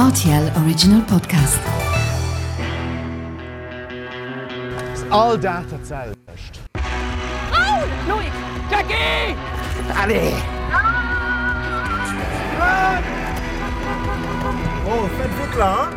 Rtl Original Podcast. Ass all Dag dat selwecht. Raoul! Loïc! Jackie! Allez! Oh, faites vite là, hein!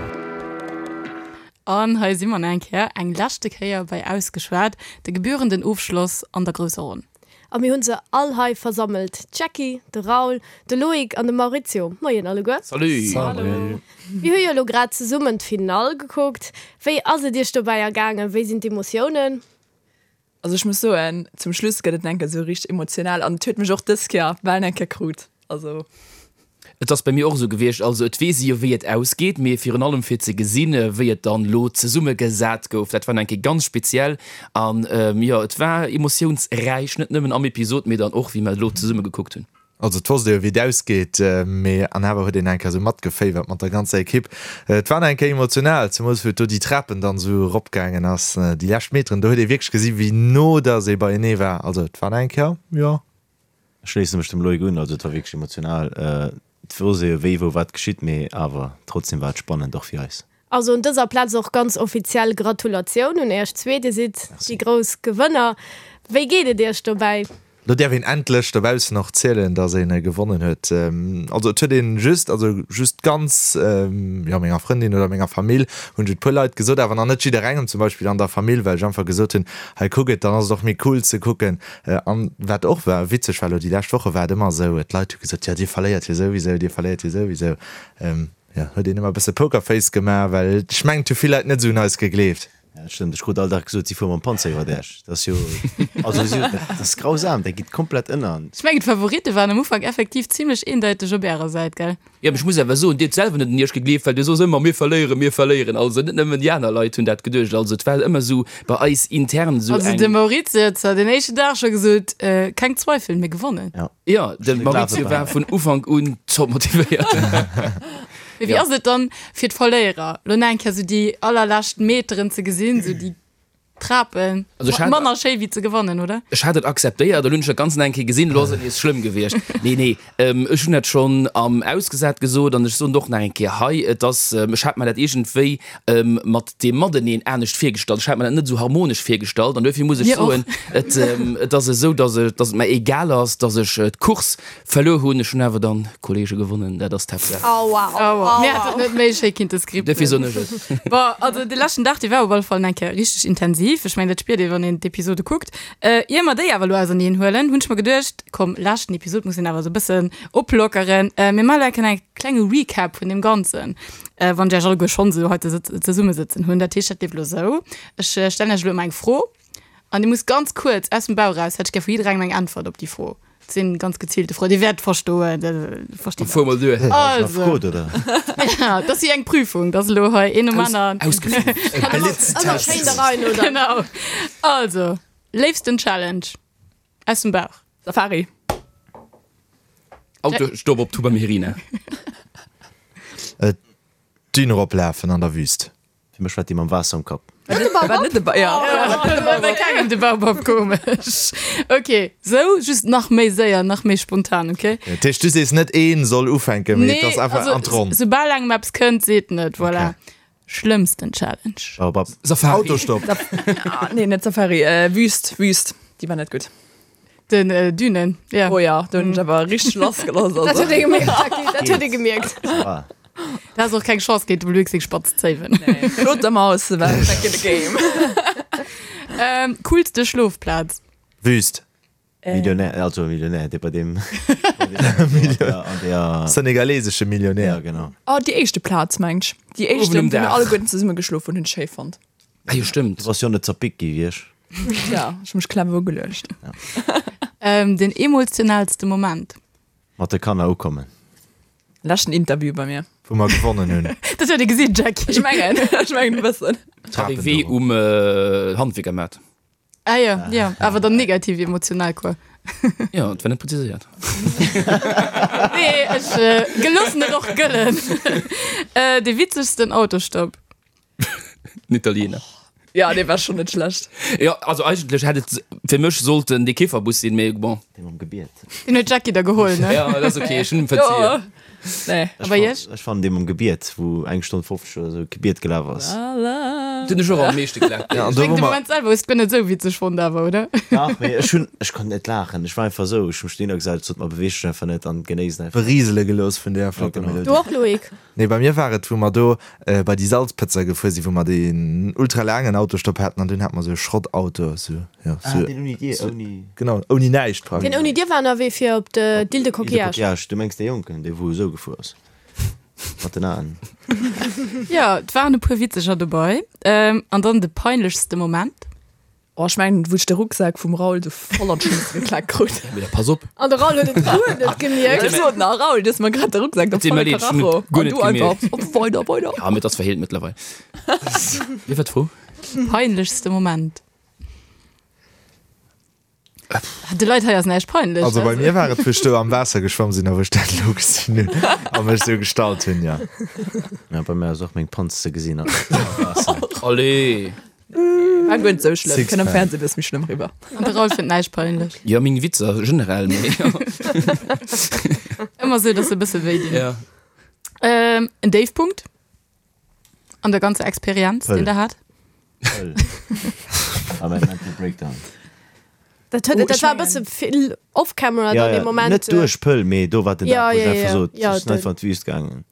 An hei si mer nach eng Kéier, eng leschte Kéier bei Ausgeschwat, de gebührenden Ofschloss an der grousser Ronn. A mir hunn se all hei versammelt, d'Jackie, de Raoul, de Loïc an de Maurizio. Moien alleguer. Salut! Salut! Mir hu jo elo grad zesummen d'Finall gekuckt. Wéi ass et iech dobäi ergaangen? Wéi sinn d'Emotiounen? Also ech muss soen, zum Schluss gëtt et enke sou richteg emotional an et huet mech och dës Kéier bal eng Kéier krut. Also. Et ass bei mir och esou gewiescht. Also et weess ee jo wéi et ausgeet, mee virun allem fir ze gesinn, wéi et dann elo zesummegesat gouf, dat war nach eng Kéier ganz speziell. An jo, et war emotiounsräich, net nëmmen am Episod, mee dann och wéi mer elo zesumme gekuckt hunn. Also et wosst ee jo wéi et ausgeet, mee an awer huet een eng Kéier esou matgeféiwert mat der ganzer Ekipp. Et war nach eng Kéier emotional, zemools wou et do déi Trapen dann esou eropgaangen ass, déi lescht Meteren, do huet ee wierklech gesi wéi no dass ee beienee war. Also et war nach eng Kéier, jo. Ech schléisse mech dem Loïc un, also et war wierklech emotional. Et wosst ee jo wéi, wou, wat geschitt, mee awer trotzdem war et spannend, och fir eis. Also un dëser Plaz och ganz offiziell Gratulatioun un Iech zwee, Dir sidd déi grouss Gewënner. Wéi geet et Iech dobäi? Lo däerf een endlech dobaussen och zielen, dass een gewonnen huet. Also et huet een just, also just ganz, jo menger Frëndin oder menger Famill hunn ech et puer Leit gesot, awer nach net jidderengem zum Beispill an der Famill, well ech einfach gesot hunn, hei kuck et, dann ass et och méi cool ze kucken. An wat och war witzeg war, elo déi lescht Woche war et ëmmer esou, d'Leit hu gesot, jo dir verléiert jo souwisou, dir verléiert jo souwisou. Jo, huet een ëmmer e bësse Pokerface gemaach, well ech mengen et hu vill Leit net esou un eis gegleeft. Ja, dat stëmmt. Ech krut all Dag gesot, si fuere mam Panzer iwwert Esch. Dat ass jo, also si, dat ass grausam, dat geet komplett ënner. Ech mengen d'Favoritte waren am Ufank effektiv zimlech eendeiteg op ärer Säit, gell? Jo, mee ech muss awer soen, dir hutt selwer net un iech gegleeft, well dir soss ëmmer, mir verléieren, mir verléieren. Also net nëmmen déi aner Leit hunn dat geduecht. Also et war ëmmer esou bei eis intern esou Also eng. de Maurizio huet zwar den éischten Dag scho gesot, keng Zweifel, mir gewonnen. Ja. Jo, de Maurizio war vun Ufank un top motivéiert. Mee wéi ass et dann fir d'Verléierer, lo nach eng Kéier esou déi allerlescht Meteren ze gesinn, esou déi Trapen, Also ech hat- manner schéi wéi ze gewannen, oder? Ech hat et akzeptéiert, elo hunn ech dat Ganzt nach eng Kéier gesinn, elo ass et nees schlëmm gewiescht. Nee, nee, ech hunn dat schonn am Ausgesat gesot an ech soen et och nach eng Kéier hei, et ass, ech hat mer dat iergendwéi mat deem Mateneen anescht virgestallt, ech hat mer dat net esou harmonesch virgestallt an duerfir muss ech Mir och. soen, et, et ass esou, dass et, dass et mer egal ass, dass ech d'Course Verluer hunn ech hunn awer dann Kollege gewonnen, dat ass d'Haaptsaach. Oh wow, Oh wow. Mir hätt et net méi schéi kinnte skripten. Duerfir soen ech et. Bon, also de leschten Dag, dee war op alle Fall eng Kéier richteg intensiv. Ech mengen, dat spiert ee wann een d'Episode kuckt. Ier mer déi awer elo auserneen huelen, hunn ech mer geduecht, komm, leschten Episod muss een awer esou e bëssen oplockeren. Mir maachen elo eng Kéier e klenge Recap vun deem Ganzen, wann ech iech alleguer schonn esou hei zesummesëtzen hunn. Dat heescht, dat leeft elo esou, Ech stellen iech elo ëmmer eng Fro an dir musst ganz kuerz aus dem Bauch eraus, hätt ech gär vu jidderengem eng Äntwert op déi Fro. Et sinn ganz gezielte Froen. Dir wäert verstoen. Versteet Fuer mol duer. Also. Frot, oder? Ja, dat ass wéi eng Prüfung. Dat ass elo hei een nom aneren. Ausgeflippt. Ëmmer Blitztest. schéin da rein, oder? Genau. Also, léifsten Challenge aus dem Bauch. Safari. Autostopp op Tuba Myrina. D'Dün eroplafen an der Wüst. Fir mech war déi mam Waasser um Kapp. Net de Baobab? Net de Ba ja. Bei kengem de Baobab, komesch. Ok, sou just nach méi séier, nach méi spontan, ok? Dat heescht, du sees net een soll ufänken, mee et ass einfach also, an d'Ronn. Soubal engem eppes kënnt, seet en et, voilà. Ok. Schlëmmsten Challenge? Baobab. Safari. Autostopp. Ah, nee, net Safari, Wüst, Wüst. Déi war net gutt. Den Dünen, ja. Oh ja, do hunn ech awer richteg lassgelooss. Dat huet ee gemierkt, Jackie, dat huet ee gemierkt. Ah. Da has och keng Chance géint dem Loïc seng spatz Zéiwen. Nee, Claude der Maus war back in the game. Ähm, coolste Schlofplaz? Wüst. Millionär, also Millionär, dee bei deem an der Senegalesesche Millionär. Ja, genau. Oh, déi éischte Plaz, mengt ech. Déi éischte, Uewen um wou mir Daach. alleguerten zesumme geschlof hunn, hunn ech schéi fonnt. Ah jo, stëmmt. Du bass jo net zerpickt gi wéi ech. Ja, ech hu mech clever ugeluecht. Ähm, den emotionaalste Moment? Mat de Kanner ukommen. Leschten Interview bei mir. Wou mer gewonnen hunn. Dat huet ee gesinn, Jackie. Ech mengen, ech mengen e bëssen. Arrivée um Handwierkermaart. Ah jo, jo, awer dann negativ emotional quoi. Jo, et war net präziséiert. Nee, ech geloossen et och gëllen. Dee witzegsten Autostopp? Den Italiener. Ja, dee war schonn net schlecht. Jo, also eigentlech hätt et fir mech sollten dee Kifferbus sinn, mee bon. Dee mam Gebiet. Deen huet d'Jackie da geholl, ne? Ja, dat ass ok, ech hunn em verziehen. Nee. A bei iech? Ech fannen dee mam Gebiet, wou eng Stonn 50 oder sou Gebiet gelaf ass. Dun ech och am meeschte gelaacht. Ja, an Ech do mengen wou de mer. Moment selwer hues de guer net esou witzeg fonnt awer, oder? Dach, mee ech hunn, ech konnt net laachen. Ech war einfach esou, ech hu mech dohinner gesat, ech sot, ma beweeg dech einfach net an genéiss et einfach. Beriesele gelooss vun deeër flotter genau. Melodie. Du och, Loïc? Nee, bei mir war et, wou mer do bei déi Salzpëtzer gefuer sinn, wou mer deen ultra laangen Autostopp haten an dunn hate mer esou e Schrottauto, esou, jo, Ah, esou, deen ouni Dier, ouni. genau, ouni näischt praktesch. Deen ouni Dier war ënnerwee fir op d'Île de Île de Coquillage. Coquillage, du mengs dee Jonken, dee wou esou gefuer ass, mat den Aen. Jo, et waren e puer witzeger dobei. An dann de peinlechste Moment? Oh, ech mengen, wou ech de Rucksak vum Raoul sou voll an d'Schnëss geklaakt krut. Mee da pass op. An de Raoul huet et guer net gemierkt. Ech sot nach, Raoul, du hues mer grad de Rucksak do Et deet volle mer leed, ech hunn Karacho. et guer An net du einfach, gemierkt. op, weider, weider. Ja, mee et ass verheelt mëttlerweil. Wéi war d'Fro? Peinlechste Moment. De Leit hei ass näischt peinlech. Also bei mir war et, wou ech do am Waasser geschwamm sinn a wou ech dat elo gesinn hunn a mech esou gestallt hunn, jo. Ja, bei mir ass och meng Panz ze gesinn am Waasser. Allez! War guer net sou schlëmm. Kënnt am Sixpack. Fernseh bëss méi schlëmm riwwer. An de Raoul fënnt näischt peinlech. Jo, meng Witzer generell, mee jo. Ëmmer sou, dass se e bësse wéi dinn. Ja. Ähm, en Déifpunkt an der ganzer Experienz, Pëll. deen der hat? Pëll. A mäin Mental Breakdown. Dat huet, Oh, dat ech war e mengen- bësse vill off-camera Ja, dann ja, dee Moment. net duerch Pëll, mee do war den Ja, Dag, wou ech ja, einfach ja. sot, Ja, ech sinn de- einfach an d'Wüst gaangen.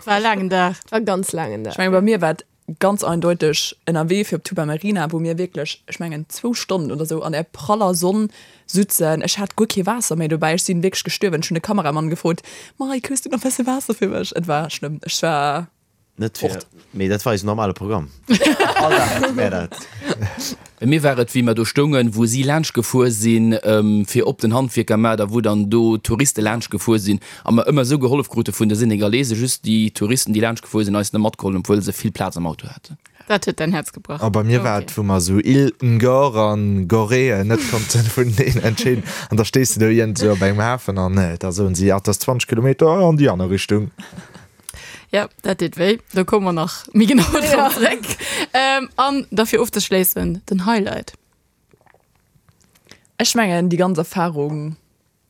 War e laangen Dag. War ganz laangen Dag. Ech mengen, bei mir war et ganz eindeuteg ënnerwee fir op Tuba Marina, wou mir wierklech, ech mengen, zwou Stonnen oder sou an där praller Sonn sutzen. Ech hat guer kee Waasser méi dobäi. Ech sinn wierklech gestuerwen. Ech hunn de Kameramann gefrot, Mike, hues du nach bësse Waasser fir mech? Et war schlëmm. Ech war Net fir, fort. mee dat war eisen normale Programm. All Dag hate mär dat. Bei mir war et, wéi mer do stoungen, wou si laanscht gefuer sinn, fir op den Handwierkermaart a wou dann do Touriste laanscht gefuer sinn a mer ëmmer esou gehollef krute vun de Senegalese, just déi Touristen, déi laanscht gefuer sinn, eis net matgeholl hunn, obwuel se vill Plaz am Auto haten. Dat huet däin Häerz gebrach. A bei mir war et, wou mer esou Île Ngor an Gorée net konnten vuneneen entscheeden. An da stees de do iergendwou op engem Hafen an da soen si, ah, 't ass 20 Kilometer an déi aner Richtung. Ja, dat deet wéi. Do komme mer nach méi genau drop zréck. An da fir ofzeschléissen, den Highlight. Ech mengen déi ganz Erfahrung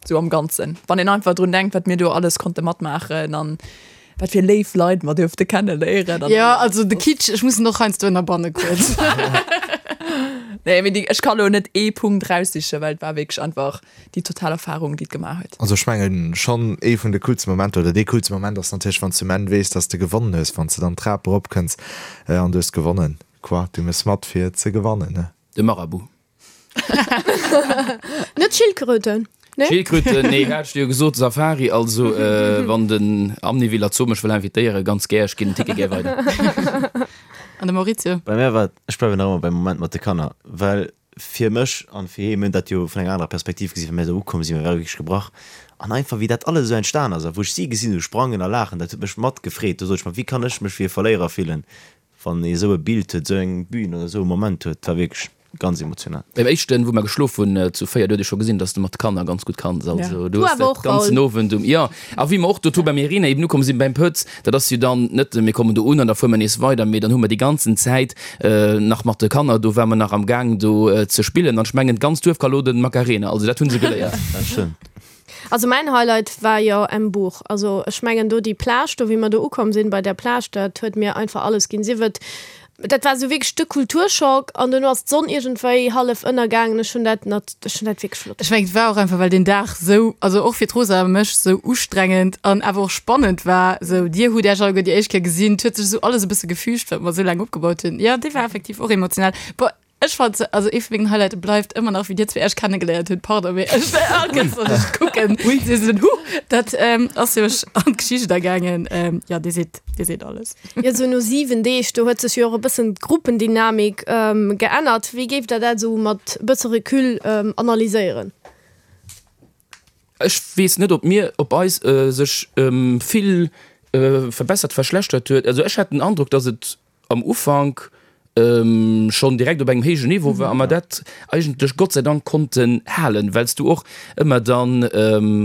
sou am Ganzen, wann een einfach drun denkt, wat mir do alles konnte matmaachen an wat fir léif Leit mer duerfte kenneléieren. Jo, also de Kitsch, ech muss en och heiansdo ënnerbanne kuerz. Nee, mee déi, ech ka lo net ee Punkt raussichen, well et war wierklech einfach déi total Erfahrung, déi et gemaach huet. Also ech mengen schonn ee vun de coolste Momenter, oder dee coolste Moment ass natierlech wann s du um Enn weess, dass de gewonnen hues, wann s de dann d'Trap erop kënns an du hues gewonnen, quoi, du mëss mat fir ze gewannen, ne? De Marabout. Net Schildkröten, nee? Schildkröten, nee, hat ech dir jo gesot, Safari, also wann den Amniviller Zoo mech wëll invitéieren, ganz gär, ech ginn den Ticket gär weider. An de Maurizio? Bei mär war et, ech bleiwen nach ëmmer beim Moment mat de Kanner, well fir mech an fir hee, mir hunn dat jo vun enger anerer Perspektiv gesinn, well mir esou ukomm sinn, mir ware wierklech gebrach an einfach wéi dat alles esou entstan ass a wou ech si gesinn hu sprangen a laachen, dat huet mech mat gefreet. Do sot ech mer, wéi kann ech mech wéi e Verléierer fillen, wann ee esou e Bild huet, esou eng Bühn oder esou e Moment huet. Dat war wierklech ganz emotional. Beim éischten, wou mer geschlof hunn zu 4, do huet ee scho gesinn, dass de mat Kanner ganz gutt kanns. Also du Du hues awer dat och, ganzen Raoul. Owend um, jo. A wéi mer och doto beim Irina eben ukomm sinn, beim Pëtz, dat ass jo dann net, mir kommen do un an da fuere mer nees weider, mee dann hu mer déi ganzen Zäit nach mat de Kanner, do ware mer nach am Gaang do ze spillen an ech mengen d'ganz Duerf ka lo den Macarena, also dat hu se geléiert. Dat stëmmt. Also mäin Highlight war jo Embourg. Also ech mengen do déi Plage do, wéi mer do ukomm sinn bei där Plage, dat huet mir einfach alles ginn. Sief et, dat war esou wierklech de Kulturschock an duerno ass d'Sonn iergendwéi hallef ënnergaangen. Ech hunn dat nat, ech hunn dat wierklech flott. Ech mengen et war och einfach well deen Dag sou, also och fir d'Rosa a mech, sou ustrengend an awer och spannend war. Sou dir hutt Iech alleguer déi éischt Kéier gesinn, et huet sech sou alles e bësse gefügt wat mer sou laang opgebaut hunn. Jo dee war effektiv och emotional. Bon Ech fand se, also ee vu mengen Highlighten bleift ëmmer nach wéi dir zwee iech kennegeléiert hutt, pardon, mee ech all Kéiers wann ech kucken, si sinn huh, dat ass jo mech an d'Geschicht agaangen. Jo, dir sidd, dir sidd alles. Jo, sou no 7 Deeg, do huet sech jo och e bëssen d'Gruppendynamik geännert. Wéi géift der dat esou mat e bësse Recul analyséieren? Ech weess net, ob mir, ob eis sech vill verbessert, verschlechtert huet. Also ech hat den Androck, datt et am Ufank schonn direkt op engem héijen Niveau war a mer dat eigentlech Gott sei Dank konnten halen, well s du och ëmmer dann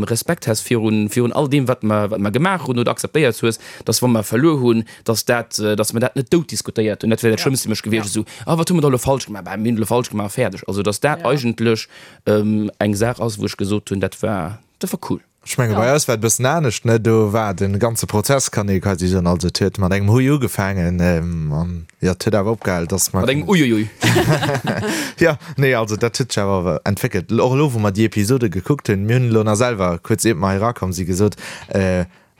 Respekt has virun, virun all deem, wat mer, wat mer gemaach hunn oder akzeptéiert hues, dass wa mer verluer hunn, dass dat, dass mer dat net dout diskutéiert hunn. Dat wär dat Schlëmmste fir mech gewiescht, esou, ah wat hu mer da elo falsch gemaach, bah mir hunn elo falsch gemaach, fäerdeg. Also dass dat eigentlech eng Saach ass, wou ech gesot hunn, dat war, dat war cool. Ech menge bei eis war et e bëssen anescht, ne? Do war de ganze Prozess, kann ee quasi soen, also et huet mat engem Hui ugefaangen an jo, et huet awer opgehal, dass mer. Mat engem Uiuiui. Jo, nee, also dat huet sech awer entwéckelt. Och elo, wou mer déi Episode gekuckt hunn, mir hunn elo nach selwer kuerz iert mer hei erakomm si gesot,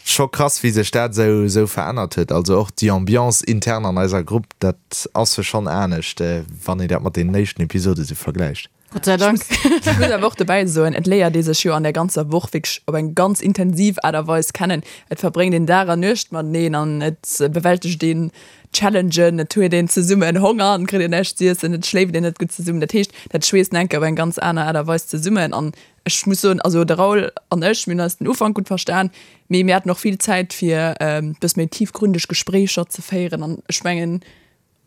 scho krass wéi sech dat esou esou verännert huet. Also och déi Ambiance intern an eiser Grupp, dat ass jo schonn anescht, wann een dat mat deenen éischten Episode sou vergläicht. Gott sei Dank. Ech muss awer och dobäi soen, et léiert ee sech jo an där ganzer Woch wierklech op eng ganz intensiv Aart a Weis kennen. Et verbréngt een Dag an Nuecht mateneen an et bewältegt een Challengen, et huet een zesummen Honger an et kritt een näischt z'iessen, et schléift een net gutt zesummen. Dat heescht, dat schweesst enke op eng ganz aner Aart a Weis zesummen. An ech muss soen, also de Raoul an ech, mir hunn eis den Ufank gutt verstan, mee mir haten och vill Zäit fir e bësse méi tiefgründeg Gespréicher ze féieren an ech mengen,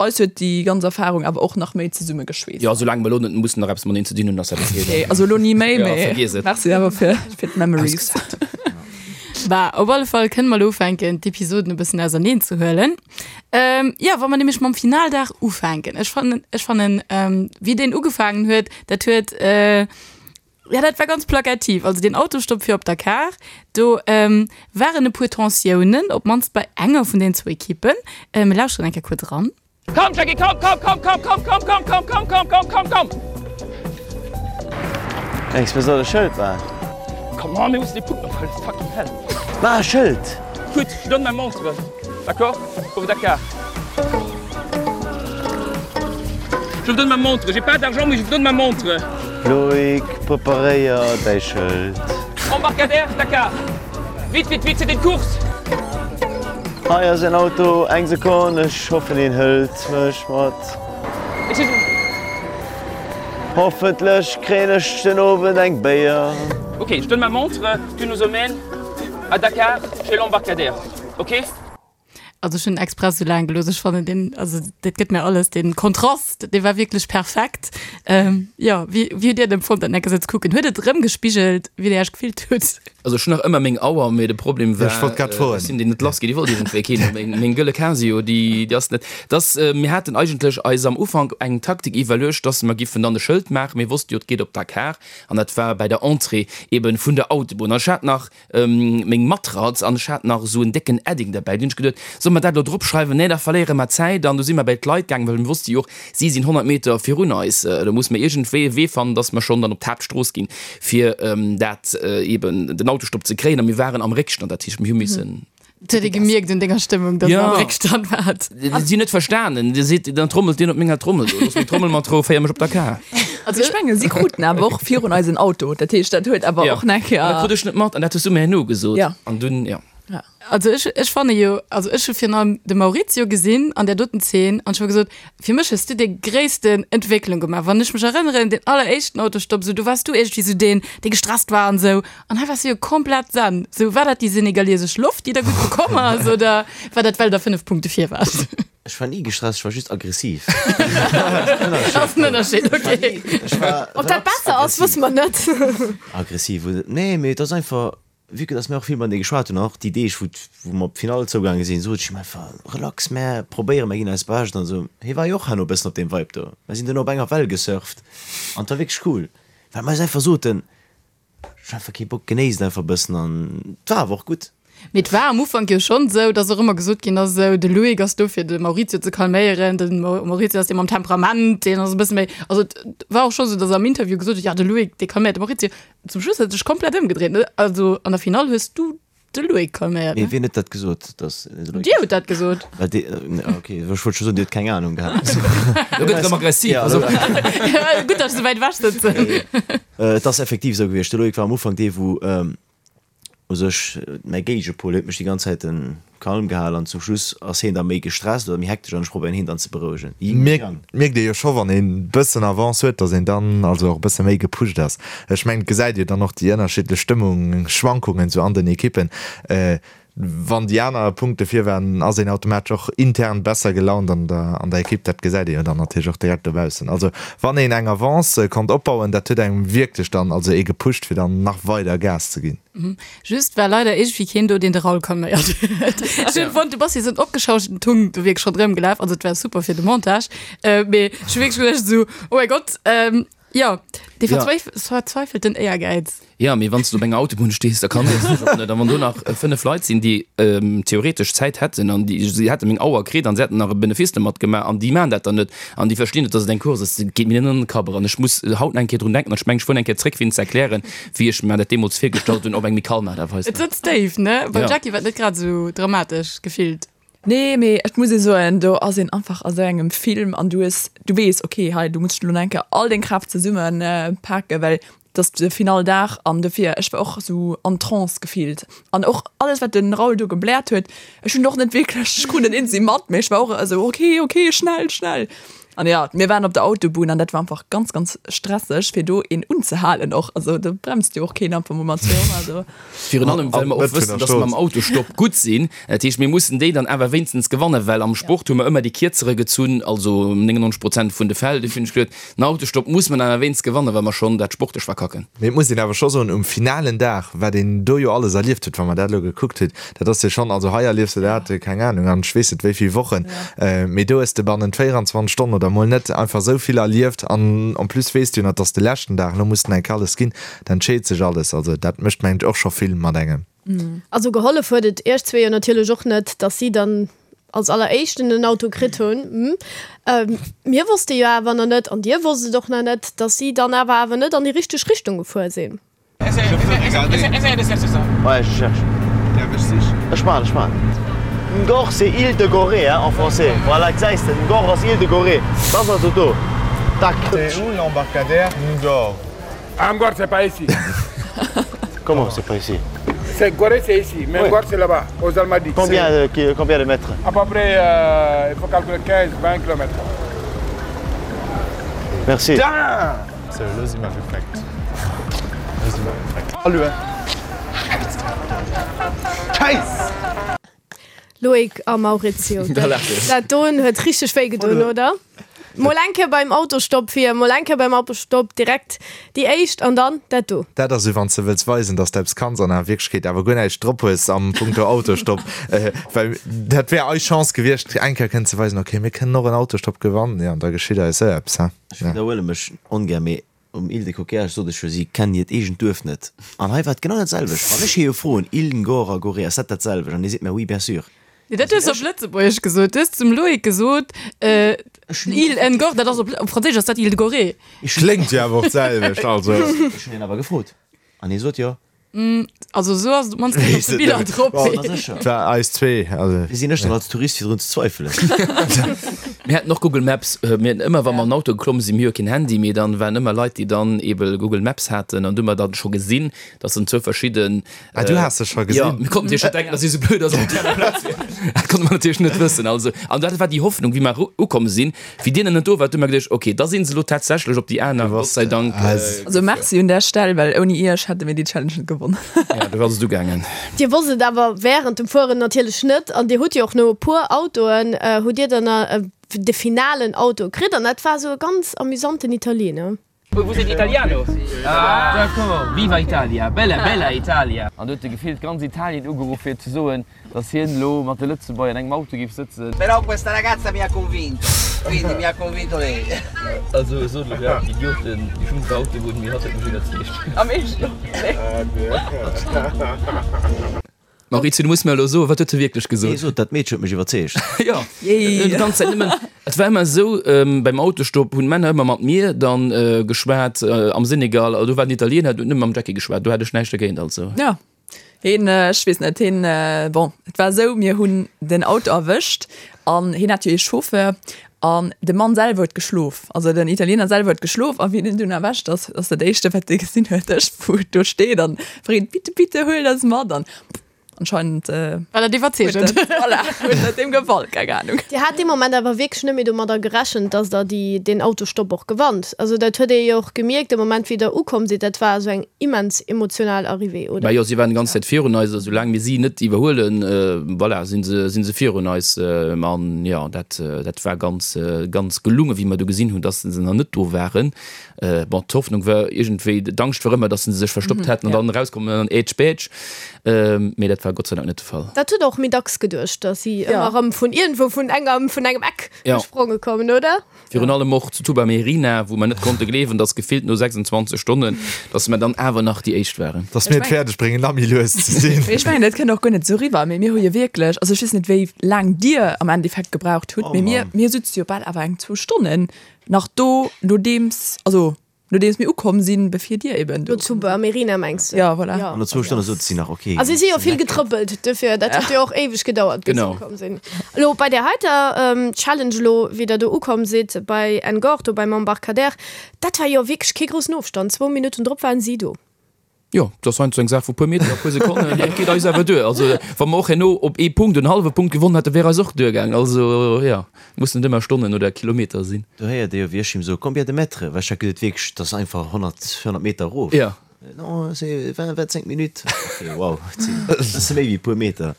Eis huet déi ganz Erfahrung awer och nach méi zesumme geschweesst. Jo, soulaang mer elo net mussen nach eppes mateneen ze dinn hunn, ass dat ok. Okay, also elo ni méi, Ja, mee vergiess et. merci awer fir fir d'Memories. Bah, op alle Fall kënne mer elo ufänken, d'Episoden e bëssen auserneen ze huelen. Jo, wa mer nämlech mam Finaldag ufänken. Ech fannen, ech fannen, wéi deen ugefaangen huet, dat huet, Ja, dat war ganz plakativ. Also deen Autostopp fir op Dakar, do waren e puer Tensiounen, op d'mannst bei enger vun den zwou Ekippen. Mir lauschteren eng Kéier kuerz eran. Komm Jackie, komm, komm, komm, komm, komm, komm, komm, komm, komm, komm, komm, komm, komm! Mengs mir soll e Schëld maachen? Come on, mir mussen dee Punkt nach huelen, fucking hell! Maach e Schëld! Écoute, je donne ma montre, d'accord? Pour Dakar. Je vous donne ma montre, j'ai pas d'argent mais je vous donne ma montre. Loïc, preparéier däi Schëld. Embarcadère, Dakar. Vite, vite, vite, c'est une course! Hei ass en Auto, eng Sekonn, ech hoffen hien hëlt mech mat. Excusez-moi. Hoffentlech kréien ech den Owend eng Béier. Ok, je donne ma montre, tu nous emmènes à Dakar chez l'embarcadère, ok? Also ech hunn express sou laang gelooss. Ech fannen deen, also dat gëtt mir alles, deen Kontrast, dee war wierklech perfekt. Ähm, jo, wéi, wéi hutt Dir et empfonnt, dat enke sou ze kucken? Huet et erëmgespigelt, wéi Dir Iech gefillt hutt? Also ech hunn nach ëmmer meng Auer, mee de Problem war, Ech wollt grad froen. ech sinn déi net lass ginn, déi wollt iergendwéi keen. Meng, meng gëlle Casio, déi, déi ass net, dass, mir haten eigentlech eis am Ufank eng Taktik iwwerluecht, dass mer giffen dann e Schëld maachen, mir wosste jo, et geet op Dakar an dat war bäi der Entrée eben vun der Autobunn an ech hat nach, meng Matratz an ech hat nach esou en décken Edding derbäi. Dunn hunn ech geduet, solle mer dat elo drop schreiwen? Nee, da verléiere mer Zäit. An du si mer bäi d'Leit gaangen, well mir wosste jo och, si sinn 100 Meter virun eis. Do musse mer iergendwéi e Wee fannen, dass mer schonn dann op d'Haaptstrooss ginn, fir dat eeben den Autostopp ze kréien. A mir waren am Réckstand, dat heescht, mir hu missen. Et huet ee gemierkt un denger Stëmmung, dass der am Réckstand waart. Si hunn net verstanen. Dir seet, dann trommelt deen op menger Trommel do. Looss meng Trommel mat Rou, féier mech op Dakar. Also ech mengen, si kruten awer och virun eis en Auto. Dat heescht, dat huet awer och nach Ja. Dat krut ech net mat an dat hues du mir herno gesot. Ja. An dunn, ja. Ja. Also ech, ech fanne jo, also ech hu virun allem de Maurizio gesinn an där doten Zeen an ech hu gesot, fir mech hues du déi gréissten Entwécklung gemaach. Wann ech mech erënneren, deen alleréischten Autostopp, sou do waars du iergendwéi sou deen, dee gestresst war an esou. An hei waars du jo komplett zen. Sou, war dat déi senegaliesesch Loft, déi der gutt bekomm ass oder war dat well der 5 Punkte vir waart? Ech war ni gestresst, ech war just aggressiv. Ass en Ënnerscheed, okay. Ob dat besser ass, wësse mer net. Aggressiv, nee, mee et ass einfach, vue que dass mir och vill matenee geschwat hunn, an och déi Deeg, wou wou mer op d'Finall zougaange sinn, sot ech him einfach, relax, mär probéieren, mär ginn eist Bescht an esou. Hie war jo och herno e bëssen op deem Vibe do. Mär sinn duerno op enger Well gesurft an et war wierklech cool, well mer eis einfach soten, Ech hun einfach kee Bock, genéisst einfach bëssen an et war awer och gutt. Mee et war am Ufank jo schonn esou, dass och ëmmer gesot ginn ass, esou de Loïc ass do fir de Maurizio ze calméieren, de Maurizio ass dee mam Temperament, deen ass e bësse méi, also et war och scho sou, dass am Interview gesot huet, jo de Loïc dee calméiert de Maurizio. Zum Schluss huet et sech komplett ëmgedréit, ne? Also an der Finall hues du De Loïc calméiert, ne? Mee wien huet dat gesot, dass de Loïc. Dir hutt dat gesot. Well dee, ok, ech wollt scho soen, Dir hutt keng Anung gehat. Lo gëtt erëm aggressiv. Ja, also. Gutt, dass ech esou wäit ewech sëtzen. Et ass effektiv esou gewiescht. De Loïc war am Ufank dee, wou u sech mäi Géigepol huet mech déi ganz Zäit kalm gehal an zum Schluss ass hien da méi gestresst oder méi hektesch an ech probéieren hien dann ze berouegen. Mierkt ee jo scho wann een bëssen Avance huet, dass een dann also och e bësse méi gepusht ass. Ech mengen et gesäit ee dann och déi ënnerschiddlech Stëmmungsschwankungen sou an den Ekippen. Wann déi aner Punkte vir waren, ass een automatesch och intern besser gelaunt an der an der Ekipp. Dat gesäit ee jo dann natierlech och direkt dobaussen. Also wann een eng Avance konnt opbauen, dat huet engem wierklech dann also ee gepusht fir dann nach weider Gas ze ginn. Just war leider iergendwéi keen do, deen de Raoul calméiert huet. Ech hunn fonnt, du bass wéi esou en opgeschauschten Tung do wierklech ronderëm gelaf. Also et war super fir de Montage, mee ech hu wierklech geduecht esou, oh mäi Gott. Jo, dee verzweifelten Éiergäiz. Jo, mee wann s du op enger Autobunn stees, da kann dech och net. A wann do nach 5 Leit sinn, déi theoretesch Zäit hätten an déi si hätte meng Auer kritt an se hätten nach e Benefice domat gemaach an déi maachen dat dann net an déi verstinn net, dass et eng Course ass, dat geet mir net an den Kapp eran. Ech muss haut nach eng Kéier drun denken an ech mengen, ech fueren eng Kéier zréck, fir hinnen ze erklären, wéi ech mer dat deemools virgestallt hunn, op eng méi kalm Aart a Weis. Et sëtzt déif, ne? Beim Jackie war et net grad esou dramatesch gefillt. Nee, mee et muss ee soen, do ass een einfach a sou engem Film an du hues, du weess, okay, hei du muss elo nach eng Kéier all deng Kraaft zesumme paken, well et ass de finale Dag an dofir, ech war och sou an Trance gefillt an och alles wat de Raoul do gebläert huet, ech hunn och net wierklech, ech krut net eenzi mat, mee ech war och esou okay, okay, schnell, schnell an jo, mir waren op der Autobunn an dat war einfach ganz, ganz stresseg fir do een unzehalen och, also do bremst jo och keen einfach mol mat 200 do. Virun allem well mer och wëssen, dass mer am Autostopp gutt sinn. Dat heescht, mir mussen déi dann awer wéinstens gewannen, well am Sport hu mer ëmmer déi Kierzere gezunn, also 99 Prozent vun de Fäll. Dofir hunn ech geduet, den Autostopp muss mer dann awer wéinstens gewannen, wa mer schonn dat sportlech verkacken. Mee et muss een awer scho soen, um finalen Dag, wat een do jo alles erlieft huet, wa mer dat elo gekuckt hunn, dat ass jo schonn, also hei erliefs de dat, keng Anung, an ech weess net wéi vill Wochen, mee do hues de bannent 24 Stonnen oder mol net einfach esou vill erlieft an en plus weess de jo nach, et ass de leschten Dag, elo muss den enk alles ginn. Da entscheet sech alles. Also dat mécht mengen ech och scho vill mat engem. Also gehollef huet et iech zwee jo natierlech och net, dass si dann als alleréischten den Auto kritt hunn. Mir wosste jo awer nach net, an dir wosst et och nach net, dass si dann awer awer net an déi richteg Richtung gefuer sinn. Ouais, je cherche. Ech maachen, ech maachen. Ngor, c'est île de Gorée, hein, en français. Voilà, gesäis de, Ngor ass île de Gorée. Dat ass also do. Tac. C'est où l'embarcadère Ngor? Ah, Ngor, c'est pas ici. Comment c'est pas ici C'est Gorée, c'est ici, mais ouais. Ngor, c'est là-bas, aux Almadies. Combien, euh, combien de mètres À peu près, euh, il faut calculer 15, 20 km. Merci. So, lo si mer gefreckt. Lo si mer gefreckt. Hallo. Scheiss! Loïc a Maurizio, dat doen huet richteg wéi gedoen, oder? Mol eng Kéier beim Autostopp fir, mol eng Kéier beim Autostopp direkt déi éischt an dann dat do. Dat ass esou, wann s de wëlls weisen, dass de eppes kanns an a Wierklechkeet awer guer näischt drop hues am Punkto Autostopp. Well dat wär eis Chance gewiescht, eng Kéier kënnen ze weisen, okay, mir kënnen och en Autostopp gewannen, jo, an da geschitt eis esou eppes, he. Ech widderhuele mech ongär, mee Um Île de Coquillage sot ech jo, si kennen hiert eegent Duerf net. An hei war et genau dat selwecht. Wann ech hie jo froen, Île Ngor a Gorée, ass dat dat selwecht? An hie seet mir, oui, bien sûr. Nee, dat hues de op Lëtzebuergesch gesot. Du hues zum Loïc gesot, Île Ngor, dat ass op Franséisch ass dat Île de Gorée. Kléngt jo awer och d'selwecht, also. Ech hunn hien awer gefrot an hie sot jo. Also esou ass et op d'mannst net op de Biller drop. Et war eis zwee. Also. Wéi sinn ech dann als Tourist fir drun ze zweifelen? Mir haten och Google Maps. Mir haten ëmmer, wa mer an den Auto geklomm sinn, mir hu jo keen Handy, mee dann waren ëmmer Leit, déi dann eebe Google Maps haten an du hu mer dann scho gesinn, dass en zwou verschidden. Ah, du has se scho gesinn? Jo, mir konnten natierlech net denken, dass si esou blöd ass op déi aner Plaz wier. Dat konnte mer natierlech net wëssen. Also, an dat war déi Hoffnung, wéi mer ukomm sinn, Wéi deen net do war, hu mer geduecht, ok, da sinn se elo tatsächlech op déi aner, Gott sei Dank. Also merci un där Stell, well ouni iech hätte mir déi Challenge net gewonnen. Ja, do ass et ugaangen. Dir wosst et awer während dem Fueren natierlech net an dir hutt jo och no e puer Autoen hutt dir dann de finalen Auto kritt an dat war esou e ganz amüsanten Italiener. Vous êtes italiano? Ah d'accord, viva Italia, bella bella Italia! An do huet e gefillt ganz Italien ugeruff fir ze soen, datt hien elo mat de Lëtzebuerger an engem Auto géif sëtzen. Però questa ragazza mi ha convinto, quindi mi ha convinto lei. Also sot elo grad Idioten, déi schlimmste Autobunn, mee hatt huet mech iwwerzeegt. Am Eescht? Maurizio, du muss mir elo soen, wat huet se wierklech gesot? Nee, sot, dat Meedche huet mech iwwerzeegt. Jo, déi ganz Zäit nëmmen. Et war ëmmer esou, beim Autostopp hunn d'Männer ëmmer mat mir dann geschwat am Senegal, do war den Italiener, deen huet nëmme mam Jackie geschwat, do hat ech näischt dergéint, also. Jo, hien, ech weess net, hien, bon, et war esou, mir hunn den Auto erwëscht an hien hat jo ee Chauffeur an de Mann selwer huet geschlof, also den Italiener selwer huet geschlof a wéi en dunn erwächt ass, ass dat éischte wat e gesinn huet, ech wou do steet an freet, bitte, bitte huel eis mat an anscheinend War dat iwwerzeegend. Voilà, huet dat deem gefall, keng Ahnung. Dir hat dee Moment awer wierklech net méi domadder gerechent, dass der déi, deen Autostopp och gewannt. Also dat huet ee jo och gemierkt de Moment wéi der ukomm sidd, dat war esou eng immens emotional Arrivée, oder? Bah jo, si waren déi ganz Zäit virun eis a soulaang mir si net iwwerhuelen, voilà, si se, si se virun eis. An jo, dat, dat war ganz, ganz gelungen, wéi mer du gesinn hunn, dass se nach net do waren. Bon, d'Hoffnung war iergendwéi, d'Angscht war ëmmer, dass se sech verstoppt hätten an dann erauskommen an dann ätsch bätsch. Mee dat war. war Gott sei Dank net de Fall. Dat hutt der och méi dacks geduecht, datt si ëmmer erëm vun iergendwou, vun engem, vun engem Eck gespronge kommen, oder? Virun allem och zu Tuba Merina, wou mer net konnte gleewen, dass gefillt no 26 Stonnen, dass mer dann awer nach déi éischt waren. Dass mir et fäerdeg bréngen, nach méi lues ze sinn. Mee ech mengen, dat kënnt och guer net esou eriwwer, mee mir hu jo wierklech, also ech weess net, wéi laang Dir am Endeffekt gebraucht hutt, mee mir, mir sutze jo bal awer eng zwou Stonnen nach do, nodeems, also Nodeems mir ukomm sinn, bevir dir eben do. Do zu Amerina mengs de? Ja, voilà. An no zwou Stonne sot si nach, ok. A si si jo vill getrëppelt, duerfir, dat huet jo och éiweg gedauert, bis se ukomm sinn. Elo bei där heiter Challenge elo, wéi der do ukomm sidd bei Ngor, do beim Embarcadère, dat war jo wierklech kee groussen Ofstand, zwou Minutten drop waren si do. Jo, dat ass heiansdo eng Saach vu puer Meter a puer Sekonnen, dat geet eis awer duer. Also wa mer och herno op ee Punkt en hallwe Punkt gewonnen hätten, wär eis och duergaang. Also jo, mussen net ëmmer Stonnen oder Kilometer sinn. Do héiert ee jo, wéi ech him soe, Combien de mètres? Well ech hat geduet, wierklech, dat ass einfach 100, 100 Meter erof. Jo. Non, c'est 20, 25 minutes. Ok, wow, dat sinn e bësse méi wéi e puer Meter.